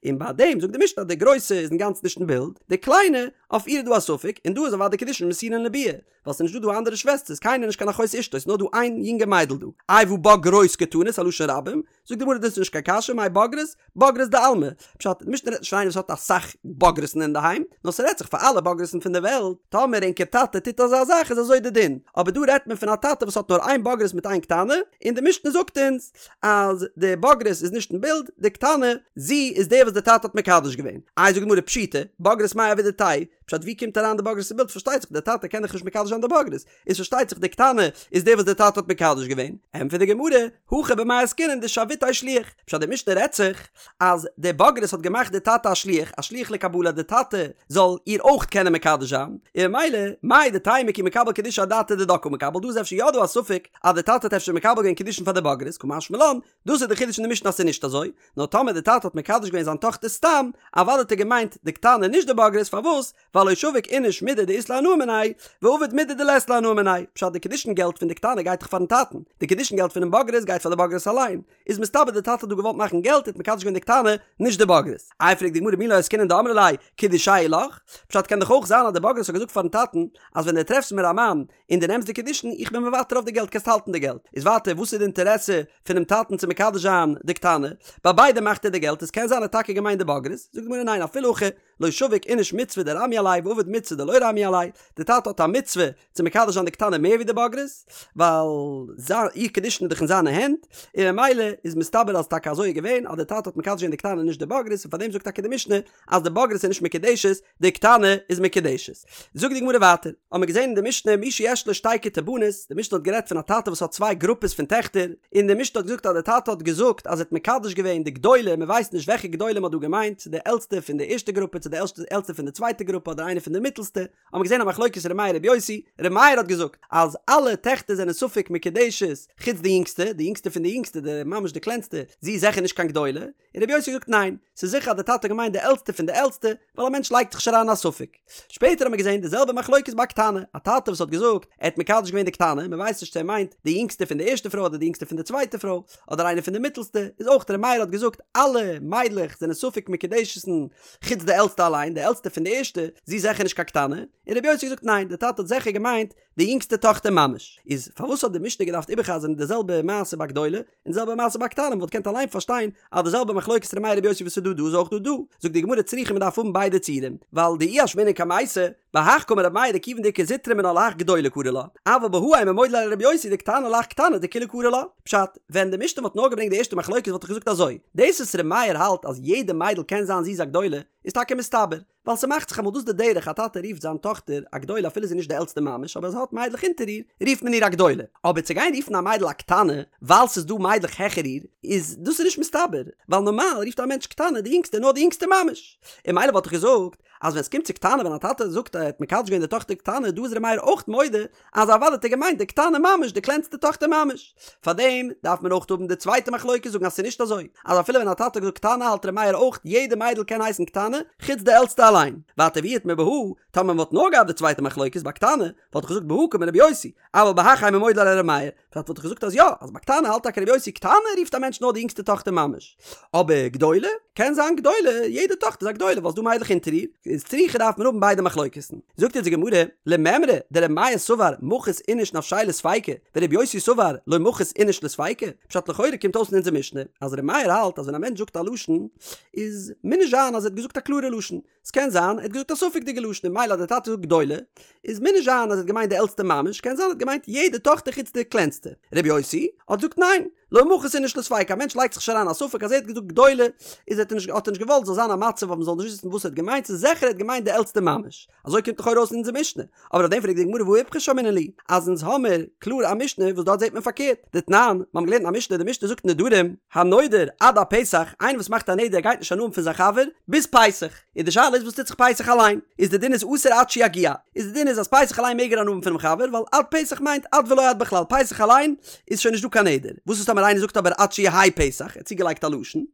און ביי דעם זאגט די משנה אז די גרויסע איז אינגאנצן נישט אין בילד, די קליינע, אויף איר איז דא א ספק, און דא איז אוודאי קידושין מסורין לביאה, ווייל ס'איז נישט דא דא אנדערע שוועסטערס, קיינער נישט קיין אחות אשתו, ס'איז נאר דא איין יונגע מיידל דא. איי והא בוגרות קתני, ס'א לשון רבים, זאגט די גמרא דאס איז נישט קיין קשיא, מאי בוגרות? בוגרות דעלמא. פשט, די משנה רעדט נישט פון איינער וואס האט אסאך בוגרות'ן אינדערהיים, נאר ס'רעדט זיך פאר אלע בוגרות'ן פון די וועלט, טאמער ענקער טאטע טוט אזא זאך איז אזוי די דין, אבער דא רעדט מען פון א טאטע וואס האט נאר איין בוגרת מיט איין קטנה, און די משנה זאגט אונז אז די בוגרת איז נישט אין בילד, די קטנה, זי איז די וואס די טאטע האט מקדש געווען. איי זאגט די גמרא פשיטא, בוגרת מאי עבידתייהו, פשט ווי קומט אריין די בוגרת אין בילד, פארשטייט זיך די טאטע קען דאך נישט מקדש זיין די בוגרת, איז פארשטייט זיך די קטנה איז די וואס די טאטע האט מקדש געווען, ענטפערט די גמרא, הכא במאי עסקינן דשוויתיה שליח, פשט די משנה רעדט זיך אז די בוגרת האט געמאכט די טאטע א שליח, א שליח לקבלה די טאטע זאל איר אויך קענען מקדש זיין, און ממילא מהו דתימא כי מקבל קידושי אדעתא דידה קא מקבל, דא איז אפשר יא דא א ספק אז די טאטע האט אפשר מקבל געווען קידושין פאר די בוגרת, קא משמע לן, דאס איז די חידוש אין די משנה אז ס'איז נישט אזוי, נאר טאמער די טאטע האט מקדש געווען זיין טאכטער סתם, אוודאי האט ער געמיינט די קטנה נישט די בוגרת, פארוואס? ווייל לא שביק איניש מידי דאית ליה הנאה מיניה, ועביד מידי דלית ליה הנאה מיניה, פשט די קידושין געלט פון די קטנה גייט דאך פארן טאטן, די קידושין געלט פונעם בוגרת גייט פאר די בוגרת אליין, איז מסתבר די טאטע האט דא געוואלט מאכן געלט האט מקדש געווען די קטנה נישט די בוגרת. איי פרעגט די גמרא מי לא עסקינן דאמרה ליה קידושייא לך, פשט קען דאך אויך זיין אז די בוגרת האט געזאגט פארן טאטן אז ווען די טרעפסט מיר א מאן און די נעמסט די קידושין איך בין מוותר אויף די געלט קענסט האלטן די געלט, איז ווייטער וואס איז די אינטערעסע פונעם טאטן צו מקדש זיין די קטנה, ביי ביידע מאכט ער די געלט איז קען זיין ער האט טאקע געמיינט די בוגרת, זאגט די גמרא ניין אפילו הכי לא שביק איניש מצוה דרמיא עליה ועביד מצוה דלא רמיא עליה, די טאטע האט א מצוה צו מקדש זיין די קטנה מער ווי די בוגרת, ווייל זיין איר קידושין איז דאך אין זיינע הענט, און ממילא איז מסתבר אז טאקע אזוי איז געווען אז די טאטע האט מקדש געווען די קטנה נישט די בוגרת און פארדעם זאגט טאקע די משנה אז די בוגרת איז נישט מקודשת די קטנה איז מקודשת. זאגט די גמרא ווייטער, האבן מיר געזען אין די משנה מי שיש לו שתי כתי בנות, די משנה האט גערעדט פון א טאטע וואס האט צוויי גרופעס פון טעכטער, און די משנה האט געזאגט אז די טאטע האט געזאגט אז ער האט מקדש געווען די גדולה, מען ווייסט נישט וועלכע גדולה מען האט דא געמיינט, צו די עלטסטע פון די ערשטע גרופע צו די עלטסטע פון די צווייטע גרופע אדער איינע פון די מיטלסטע, האבן מיר געזען א מחלוקת ר' מאיר ר' יוסי, ר' מאיר האט געזאגט אז אלע טעכטער זענען ספק מקודשת חוץ די יונגסטע, די יונגסטע פון די יונגסטע, די ממש די קלענסטע, זי איז זיכער נישט קיין גדולה, און רבי יוסי האט געזאגט ניין, ס'איז זיכער אז די טאטע האט געמיינט די עלטסטע פון די עלטסטע, ווייל א מענטש לייגט זיך נישט אריין א ספק. שפעטער האט מען געזען די זעלבע מחלוקת ביי א קטנה, א טאטע וואס האט געזאגט ער האט מקדש געווען די קטנה, מען ווייסט נישט צו ער מיינט די יונגסטע פון די ערשטע פרוי אדער די יונגסטע פון די צווייטע פרוי, אדער איינע פון די מיטלסטע, איז אויך ר' מאיר האט געזאגט אלע מיידלעך זענען ספק מקודשת'ן חוץ די עלטסטע. עלטסטע אליין, די עלטסטע פון די ערשטע, זי איז זיכער נישט קיין קטנה, און רבי יוסי האט געזאגט ניין, די טאטע האט זיכער געמיינט די יונגסטע טאכטער ממש. איז פארוואס האט די משנה געדארפט איבערחזר'ן די זעלבע מעשה ביי גדולה, און די זעלבע מעשה ביי קטנה, מ'וואלט געקענט אליין פארשטיין אז די זעלבע מחלוקת ר' מאיר רבי יוסי וואס איז דא דא איז אויך דא דא. זאגט די גמרא צריכא מ'דארף האבן ביידע ציורים, ווייל דאי אשמעינן קמייתא, בהך קאמר ר' מאיר דכיון דאיכא זוטרא מינה להך גדולה קרי לה, אבל בהא אימא מודה ליה לרבי יוסי דקטנה להך קטנה דכולה קרי לה. פשט, ווען די משנה וואלט נאר געברענגט די ערשטע מחלוקת וואלט איך געזאגט אזוי, דאס וואס ר' מאיר האלט אז יעדע מיידל קען זיין זי איז א גדולה, איז טאקע מסתבר, ווייל ס'מאכט זיך אמאל דאס די דרך א טאטע רופט זיין טאכטער א גדולה אפילו זי איז נישט די עלטסטע ממש אבער זי האט מיידלעך אונטער איר רופט מען איר א גדולה, אבער צו גיין רופן א מיידל א קטנה ווייל ס'איז דא מיידלעך העכער איר איז דאס איז נישט מסתבר, ווייל נארמאל רופט א מענטש קטנה די יונגסטע נאר די יונגסטע ממש, און ממילא וואלט איך געזאגט אז ווען ס'קומט צו קטנה ווען א טאטע זאגט ער האט מקדש געווען די טאכטער קטנה דא איז ר' מאיר אויך מודה אז אוודאי האט ער געמיינט די קטנה ממש די קלענסטע טאכטער ממש. פארדעם דארף מען אויך האבן די צווייטע מחלוקת זאגן אז ס'איז נישט אזוי אז אפילו ווען א טאטע האט געזאגט קטנה האלט ר' מאיר אויך יעדע מיידל קען הייסן קטנה חוץ די עלטסטע אליין. ווייטער ואי איתמר בהא, טאמער מ'וואלט נאר געהאט די צווייטע מחלוקת ביי קטנה וואלט איך געזאגט בהא קאמר רבי יוסי אבל בהך אימא מודה ליה לר' מאיר פשט וואלט איך געזאגט אז יא, אז ביי קטנה האלט טאקע רבי יוסי קטנה רופט א מענטש נאר די יונגסטע טאכטער ממש. אבער גדולה? קען זיין גדולה, יעדע טאכטער איז א גדולה ווייל ס'דא מיידלעך אונטער איר, איז צריכא דארף מען האבן ביידע מחלוקת'ן. זאגט אונז די גמרא, למימרא דרבי מאיר סבר מחית איניש נפשיה לספיקא, ורבי יוסי סבר לא מחית איניש לספיקא, פשט לכאורה קומט אויס אין אונזער משנה אז רבי מאיר האלט אז ווען א מענטש זאגט א לשון איז מוז נישט זיין אז ער האט געזאגט א קלארע לשון, ס'קען זיין ער האט געזאגט א ספק'דיגע לשון און ממילא אז דער טאטע זאגט גדולה איז מוז נישט זיין אז ער האט געמיינט די עלטסטע ממש קען זיין ער האט געמיינט יעדע טאכטער חוץ די קלענסטע. רבי יוסי האט געזאגט ניין, לא מחית איניש לספיקא א מענטש לייגט זיך נישט אריין א ספק אז ער האט געזאגט גדולה איז האט ער נישט האט ער נישט געוואלט זאל זיין א מצב וואס מ'זאל נישט וויסן וואס ער האט געמיינט ס'איז זיכער ער האט געמיינט די עלטסטע ממש. אזוי קומט לכאורה אויס אין אונזער משנה. אבער אויף דעם פרעגט די גמרא והא איפכא שמעינן להו אז אונז האמיר קלאר א משנה וואס דארט זעט מען פארקערט, דתנן, מיר האבן געלערנט אין א משנה, די משנה זאגט נדרים, הנודר עד הפסח, איינער וואס מאכט א נדר גייט נישט הנאה האבן פון זיין חבר ביז פסח, און די שאלה איז וואס טוט זיך פסח אליין, איז די דין איז אסור עד שיגיע, איז די דין איז אז פסח אליין מעג ער הנאה האבן פונעם חבר ווייל עד פסח מיינט עד ולא עד בכלל, פסח אליין איז שוין נישט דא קיין נדר, וואס איז טאמער איינער זאגט אבער עד שיהא פסח, ער האט צוגעלייגט א לשון,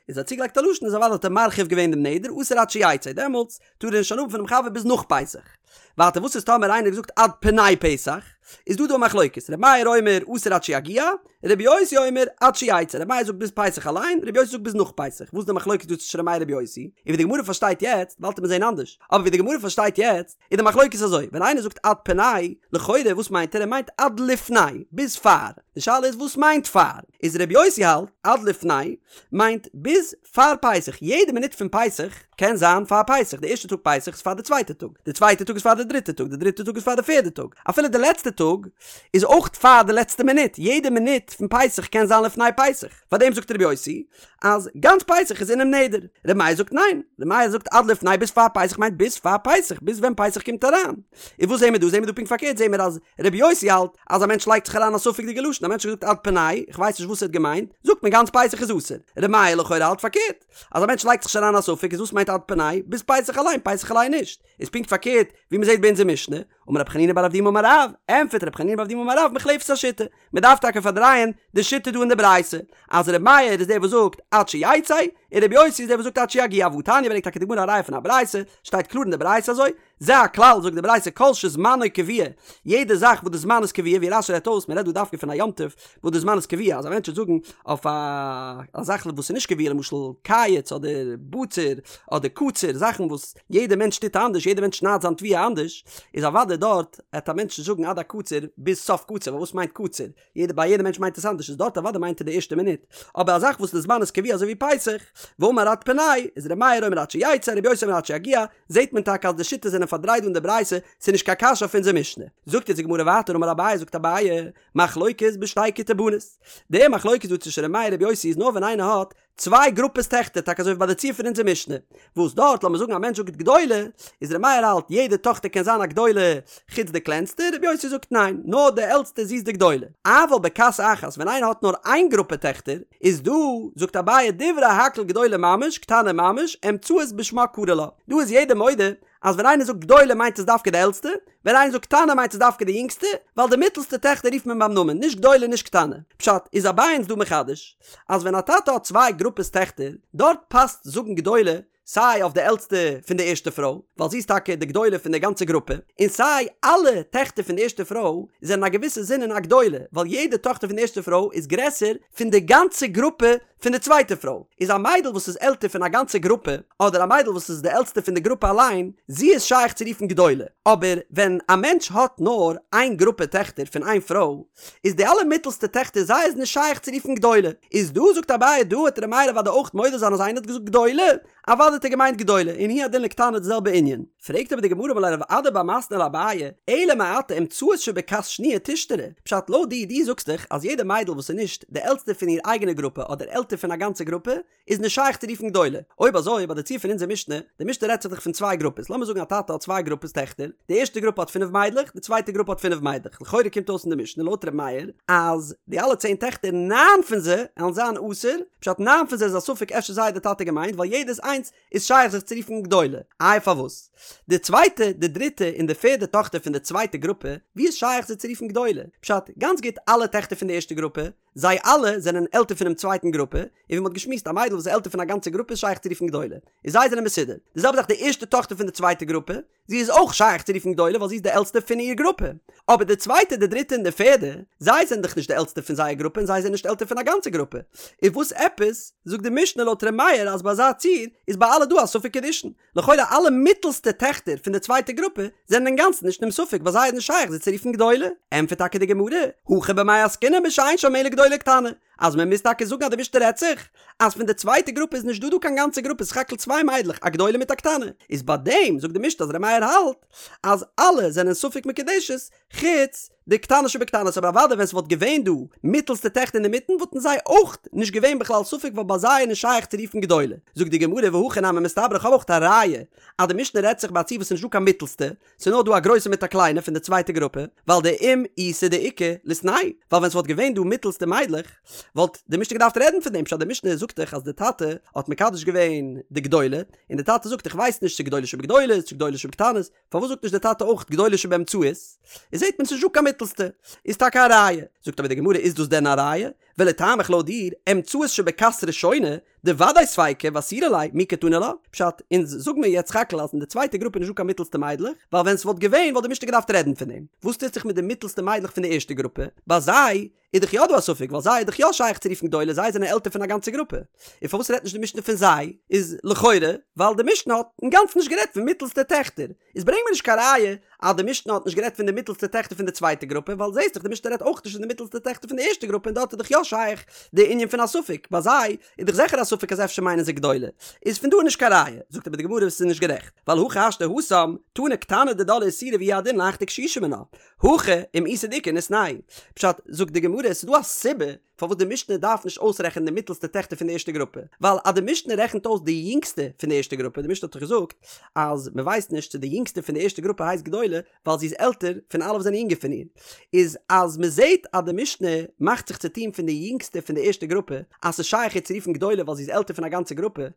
איז ער האט צוגעלייגט א לשון איז אוודאי האט ער מרחיב געווען דעם נדר, אסור עד שיצא, דעמאלטס טאר ער נישט הנאה האבן פונעם חבר ביז נאך פסח. ווייטער וואס איז טאמער איינער האט געזאגט עד פני פסח? איז דא דא א מחלוקת, ר' מאיר אומר אסור עד שיגיע, ר' יוסי אומר עד שיצא, ר' מאיר זאגט ביז פסח אליין, ר' יוסי זאגט ביז נאך פסח, וואס איז די מחלוקת דא צווישן ר' מאיר ר' יוסי? און ווי די גמרא פארשטייט יעצט, באלד וועט מען זעהן אנדערש, אבער ווי די גמרא פארשטייט יעצט, איז די מחלוקת אזוי, ווען איינער זאגט עד פני, לכאורה וואס מיינט ער? ער מיינט עד לפני, ביז פאר, די שאלה איז וואס מיינט פאר? איז ר' יוסי האלט עד לפני מיינט ביז פאר פסח, יעדע מינוט פון פסח קען זיין פאר פסח, די ערשטע טאג פסח איז פאר די צווייטע טאג, די צווייטע טאג איז פאר די דריטע טאג, די דריטע טאג איז פאר די פערדע טאג, אפילו די לעצטע טאג איז אויך פאר די לעצטע מינוט, יעדע מינוט פון פסח קען זיין לפני פסח, פאר דעם זאגט רבי יוסי אז גאנץ פסח איז אינעם נדר, רבי מאיר זאגט ניין, רבי מאיר זאגט עד לפני ביז פאר פסח מיינט ביז פאר פסח, ביז ווען פסח קומט אריין. און וואס זעהן מיר דא? זעהן מיר דא פונקט פארקערט, זעהן מיר אז רבי יוסי האלט אז א מענטש לייגט זיך אריין א ספק'דיגע לשון, א מענטש האט געזאגט עד פני, איך ווייס נישט וואס ער האט געמיינט, זאגט מען גאנץ פסח איז אסור. רבי מאיר לכאורה האלט פארקערט, אז א מענטש לייגט זיך נישט אריין א ספק איז וואס מיינט עד פני? ביז פסח אליין, פסח אליין נישט. איז פונקט פארקערט ווי מען זעהט ביי אונזער משנה, אמר רב חנינא בר אבדימי אמר רב, ענטפערט רב חנינא בר אבדימי אמר רב מוחלפת השיטה, מען דארף טאקע פארדרייען די שיטה דא אין די ברייתא, אז רבי מאיר איז דער וואס זאגט עד שיצא, און רבי יוסי איז דער וואס זאגט עד שיגיע, והתניא ברענגט טאקע די גמרא א ראיה פון א ברייתא, שטייט קלאר אין די ברייתא אזוי, זה הכלל, זאגט די ברייתא כל שזמנו קבוע, יעדע זאך וואס די זמן איז קבוע, ווי רש"י רעדט אויס, מען רעדט דא דווקא פון א יום טוב וואס די זמן איז קבוע, אז א מענטש וועט זאגן אויף א זאך וואס איז נישט קבוע, למשל קיץ אדער בציר אדער קציר, זאכן וואס יעדע מענטש טוט אנדערש, יעדע מענטש שניידט זיין תבואה אנדערש, איז אוודאי דארט העט א מענטש נישט זאגן עד הקציר ביז סוף קציר, ווייל וואס מיינט קציר? יעדע ביי יעדע מענטש מיינט עס אנדערש איז דארט אוודאי מיינט ער די ערשטע מינוט, אבער א זאך וואס די זמן איז קבוע אזוי ווי פסח, ואמר עד פני, איז ר' מאיר אומר עד שיצא, ר' יוסי אומר עד שיגיע, זעהט מען טאקע אז די שיטות זענען פארדרייט דא אין די ברייתא, ס'איז נישט קיין קשיא אויף אונזער משנה. זאגט יעצט די גמרא ווייטער אמר אביי זאגט אביי, מחלוקת בשתי כיתי בנות, די מחלוקת דא צווישן ר' מאיר ר' יוסי איז נאר ווען איינער האט צוויי גרופעס טעכטער, טאקע אזוי ווי ביי די ציור פון אונזער משנה, וואס דארט לאמיר זאגן א מענטש זאגט גדולה, איז ר' מאיר האלט יעדע טאכטער קען זיין א גדולה חוץ די קלענסטע, ר' יוסי זאגט ניין, נאר די עלטסטע זי איז די גדולה. אבל בכת אחת ווען איינער האט נאר איין גרופע טעכטער, איז דא, זאגט אביי דברי הכל גדולה ממש, קטנה ממש, אמצעית בשמה קרי לה, דא איז יעדער מודה אז ווען איינער זאגט גדולה מיינט עס דווקא די עלטסטע, ווען איינער זאגט קטנה מיינט עס דווקא די יונגסטע, ווייל די מיטלסטע טעכטער רופט מען ביים נאמען, נישט גדולה נישט קטנה. פשט, איז אביי אונז דא מחדש, אז ווען א טאטע האט צוויי גרופעס טעכטער, דארט פאסט זאגן גדולה סיי אויף די עלטסטע פון די ערשטע פרוי, ווייל זי איז טאקע די גדולה פון די גאנצע גרופע, און סיי אלע טעכטער פון די ערשטע פרוי זענען א געוויסע זינען א גדולה, ווייל יעדע טאכטער פון די ערשטע פרוי איז גרעסער פון די גאנצע גרופע. פון די צווייטע פרוי, איז א מיידל וואס איז עלטער פון א גאנצע גרופע, אדער א מיידל וואס איז די עלטסטע פון די גרופע אליין, זי איז שייך צו רופן גדולה, אבער ווען א מענטש האט נאר איין גרופע טעכטער פון איין פרוי, איז די אלע מיטלסטע טעכטער זיי איז נישט שייך צו רופן גדולה, איז דא זאגט אביי דא וועט ר' מאיר אוודאי אויך מודה זיין אז איינער האט געזאגט גדולה, אוודאי האט ער געמיינט גדולה, און הוא הדין לקטנה די זעלבע ענין. פרעגט אבער די גמרא אמר ליה רב אדא בר מתנא לאביי, אלא מעתה אמצעית שבכת שניה תישתרי, פשט לויט דיר, דו זאגסט דאך אז יעדע מיידל וואס איז נישט די עלטסטע פון איר אייגענע גרופע אדער עלטער פון א גאנצע גרופע, איז נישט שייך צו רופן גדולה. אויב אזוי ביי די ציור פון אונזער משנה, די משנה רעדט זיך דאך פון צוויי גרופעס, לאמיר זאגן א טאטע האט צוויי גרופעס טעכטער, די ערשטע גרופע האט פינף מיידלעך, די צווייטע גרופע האט פינף מיידלעך, לכאורה קומט אויס אין די משנה לויט ר' מאיר אז די אלע צען טעכטער ניין פון זיי עלן זיין אסור, פשט ניין פון זיי איז א ספק אפשר זיי האט די טאטע געמיינט ווייל יעדעס איינס איז שייך זיך צו רופן גדולה. איי פארוואס? די צווייטע, די דריטע און די פערדע טאכטער פון די צווייטע גרופע, ווי איז שייך זיי צו רופן גדולה? פשט, גאנץ גוט אלע טעכטער פון די ערשטע גרופע, זיי אלע זענען עלטער פונעם צווייטן גרופע, און ווי מ'האט געשמועסט א מיידל וואס איז עלטער פון א גאנצע גרופע איז שייך צו רופן גדולה, און זיי זענען מסודר. די זעלבע זאך די ערשטע טאכטער פון די צווייטע גרופע, זי איז אויך שייך צו רופן גדולה ווייל זי איז די עלטסטע פון איר גרופע. אבער די צווייטע, די דריטע און די פערדע, זיי זענען דאך נישט די עלטסטע פון זייער גרופע און זיי זענען נישט עלטער פון א גאנצע גרופע. איז וואס עפעס זאגט די משנה לויט ר' מאיר אז ביי אזא ציור איז ביי אלע דא א ספק קידושין? לכאורה אלע מיטלסטע טעכטער פון די צווייטע גרופע זענען אינגאנצן נישט אינעם ספק ביי זיי איז נישט שייך זיי צו רופן גדולה. ענטפערט טאקע די גמרא, הכא במאי עסקינן בשאין שם אלא גדולה וקטנה, אז מען מוז טאקע זאגן אז די משנה רעדט זיך אז פון די צווייטע גרופע איז נישט דא דא קיין גאנצע גרופע סך הכל צוויי מיידלעך א גדולה מיט א קטנה, איז ביי דעם זאגט די משנה אז ר' מאיר האלט אז אלע זענען ספק מקודשת חוץ די קטנה שבקטנות אבער אוודאי ווען ס'וואלט געווען דא מיטעלסטע טעכטער אינדערמיטן וואלטן זיי אויך נישט געווען בכלל ספק ווייל ביי זיי איז נישט שייך צו רופן גדולה. זאגט די גמרא והכי נמי מסתברא איך האב אויך א ראיה אז די משנה רעדט זיך ביי א ציור וואס איז נישט דא קיין מיטעלסטע ס'איז נאר דא א גרויסע מיט א קליינע פון די צווייטע גרופע ווייל דאם איתא דאיכא ליתנהו ווייל ווען ס'וואלט געווען דא מיטעלסטע מיידלעך וואלט די משנה געדארפט רעדן פון דעם פשט די משנה זאגט דאך אז די טאטע האט מקדש געווען די גדולה און די טאטע זאגט איך ווייס נישט צו גדולה שבגדולות צו גדולה שבקטנות פארוואס זאגט נישט דער טאטע אויך גדולה שבאמצעית? איז זעט מען ס'נישט דא קיין מיטלסטע, איז טאקע א ראיה. זאגט אבער די גמרא איז דאס דען א ראיה? ולטעמיך לויט דיר, אמצעית שבכת ראשונה, דודאי ספיקא ואסירא ליה, מי קתני לה? פשט, אונז זאג מיר יעצט סך הכל אז אין די צווייטע גרופע איז נישט דא קיין מיטלסטע מיידלעך, ווייל ווען ס'וואלט געווען וואלט די משנה געדארפט רעדן פון דעם. וואס טוט זיך מיט די מיטלסטע מיידלעך פון די ערשטע גרופע? ביי זיי איז דאך יא דא א ספק ווייל זיי איז דאך יא שייך צו רופן גדולה זיי זענען עלטער פון א גאנצע גרופע און פארוואס רעדט נישט די משנה פון זיי איז לכאורה ווייל די משנה האט אינגאנצן נישט גערעדט פון מיטלסטע טעכטער איז ברענג מיר נישט קיין ראיה אז די משנה האט נישט גערעדט פון די מיטלסטע טעכטער פון די צווייטע גרופע ווייל זעהסט דאך די משנה רעדט אויך נישט פון די מיטלסטע טעכטער פון די ערשטע גרופע און דארט איז דאך יא שייך די ענין פון א ספק ביי זיי איז דאך זיכער א ספק אז אפשר מיינען זיי גדולה איז פון דא נישט קיין ראיה זאגט אבער די גמרא עס איז נישט גערעכט ווייל הכי השתא התם תנא קטנה דידה לאיסורא והוא הדין להך דקשישא מינה הכא אם איתא דאיכא ניתנהו. פשט, זאגט די גמרא, עס איז דא א סיבה פארוואס די משנה דארף נישט אויסרעכענען די מיטלסטע טעכטער פון די ערשטע גרופע, ווייל אז די משנה רעכנט אויס די יונגסטע פון די ערשטע גרופע, די משנה האט דאך געזאגט אז מען ווייסט נישט צו די יונגסטע פון די ערשטע גרופע הייסט גדולה, ווייל זי איז עלטער פון אלע וואס זענען יונגער פון איר, איז אז מען זעט אז די משנה מאכט זיך צו טון פון די יונגסטע פון די ערשטע גרופע, אז ס'איז שייך איר צו רופן גדולה ווייל זי איז עלטער פון א גאנצע גרופע,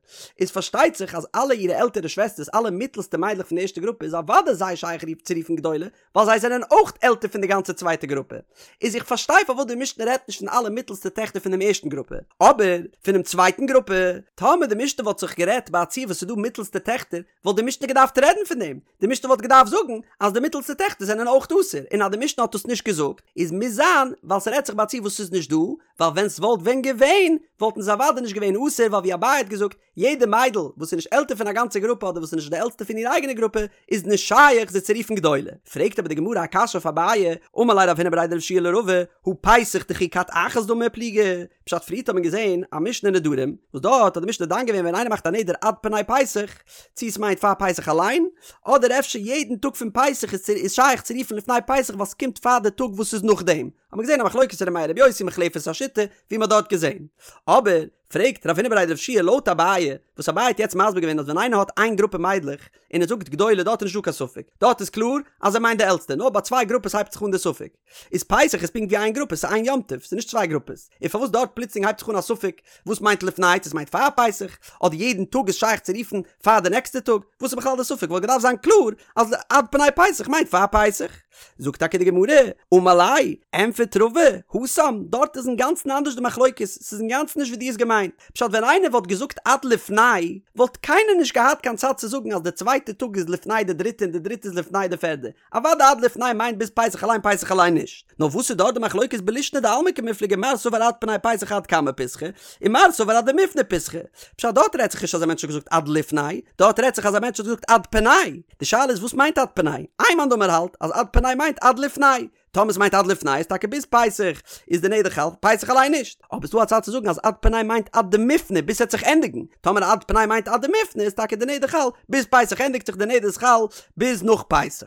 איז פארשטייט זיך אז אלע אירע עלטערע שוועסטערס, אלע מיטלסטע מיידלעך פון די ערשטע גרופע איז אוודאי זיי שייך צו רופן גדולה, ווייל זיי זענען אויך עלטער פון די גאנצע צווייטע גרופע. איז איך פארשטיי פארוואס די משנה רעדט נישט פון אלע מיטלסטע טעכטער פון דעם ערשטן גרופע, אבער פונעם צווייטן גרופע, טאמער די משנה וואלט זיך גערעדט ביי א ציור וואס ס'איז דא מיטלסטע טעכטער, וואלט די משנה געדארפט רעדן פון דעם, די משנה וואלט געדארפט זאגן אז די מיטלסטע טעכטער זענען אויך אסור, און אז די משנה האט דאס נישט געזאגט, איז מוז זיין ווייל ס'רעדט זיך ביי א ציור וואס ס'איז נישט דא, ווייל ווען ס'וואלט ווען געווען, וואלטן זיי אוודאי נישט געווען אסור, ווייל ווי אביי האט געזאגט, יעדע מיידל וואס איז נישט עלטער פון א גאנצע גרופע אדער וואס איז נישט די עלטסטע פון איר אייגענע גרופע איז נישט שייך זי צו רופן גדולה. פרעגט אבער די גמרא א קשיא אויף אביי, אמר ליה רב הונא בריה דרב יהושע לרבא, הא פסח דכי כת אחת דמי ופליגי, פשט פריערט האט מען געזען א משנה אין נדרים, וואס דארט האט די משנה דן געווען ווען איינער מאכט א נדר עד פני פסח, צו עס מיינט פאר פסח אליין, אדער אפשר יעדן טאג פון פסח איז שייך צו רופן לפני פסח ווייל ס'קומט פאר די טאג וואס איז נאכדעם, האט מען געזען א מחלוקת ר' מאיר ר' יוסי מוחלפת השיטה, ווי מען האט דארט געזען. אבער פרעגט רב הונא בריה דרב יהושע לויט אביי, וואס אביי האט יעצט מסביר געווען אז ווען איינער האט איין גרופע מיידלעך און ער זאגט גדולה דארט איז נישטא קיין ספק, דארט איז קלאר אז ער מיינט די עלטסטע, נאר ביי צוויי גרופעס הייבט זיך אן די ספק. איז פסח איז פונקט ווי איין גרופע, ס'איז איין יום טוב, ס'איז נישט צוויי גרופעס. און פארוואס דארט פלוצלינג הייבט זיך אן א ספק וואס מיינט לפני, צו עס מיינט פאר פסח, אדער יעדן טאג איז שייך צו רופן פאר די נעקסטע טאג, וואס איז בכלל די ספק? וואלט געדארפט זיין קלאר אז עד פני פסח מיינט פאר פסח. זאגט טאקע די גמרא, אמר ליה, ענטפערט רבא, התם, דארט איז אינגאנצן אנדערש די מחלוקת, ס'איז אינגאנצן נישט ווי דו האסט געמיינט. מיינט. פשט ווען איינער וואלט געזאגט עד לפני וואלט קיינער נישט געהאט קיין צד צו זאגן אז די צווייטע טאג איז לפני די דריטע און די דריטע איז לפני די פערדע. אוודאי עד לפני מיינט ביז פסח אליין פסח אליין נישט. נאר וואס איז דארט די מחלוקת בלישנא דעלמא קמיפלגי מר סבר עד פני פסח עד קמי פסחא און מר סבר עד דמיפני פסחא. פשט דארט רעדט זיך נישט אז א מענטש האט געזאגט עד לפני, דארט רעדט זיך אז א מענטש האט געזאגט עד פני. די שאלה איז וואס מיינט עד פני? איין מאן דאמר האלט אז עד פני מיינט עד לפני. טאמער ס'מיינט עד לפני איז טאקע ביז פסח איז די נדר חל, פסח אליין נישט. אבער ס'דא א צד צו זאגן אז עד פני מיינט עד דמיפני ביז ס'עט זיך ענדיגן. טאמער עד פני מיינט עד דמיפני איז טאקע די נדר חל ביז פסח ענדיגט זיך די נדר איז חל ביז נאך פסח.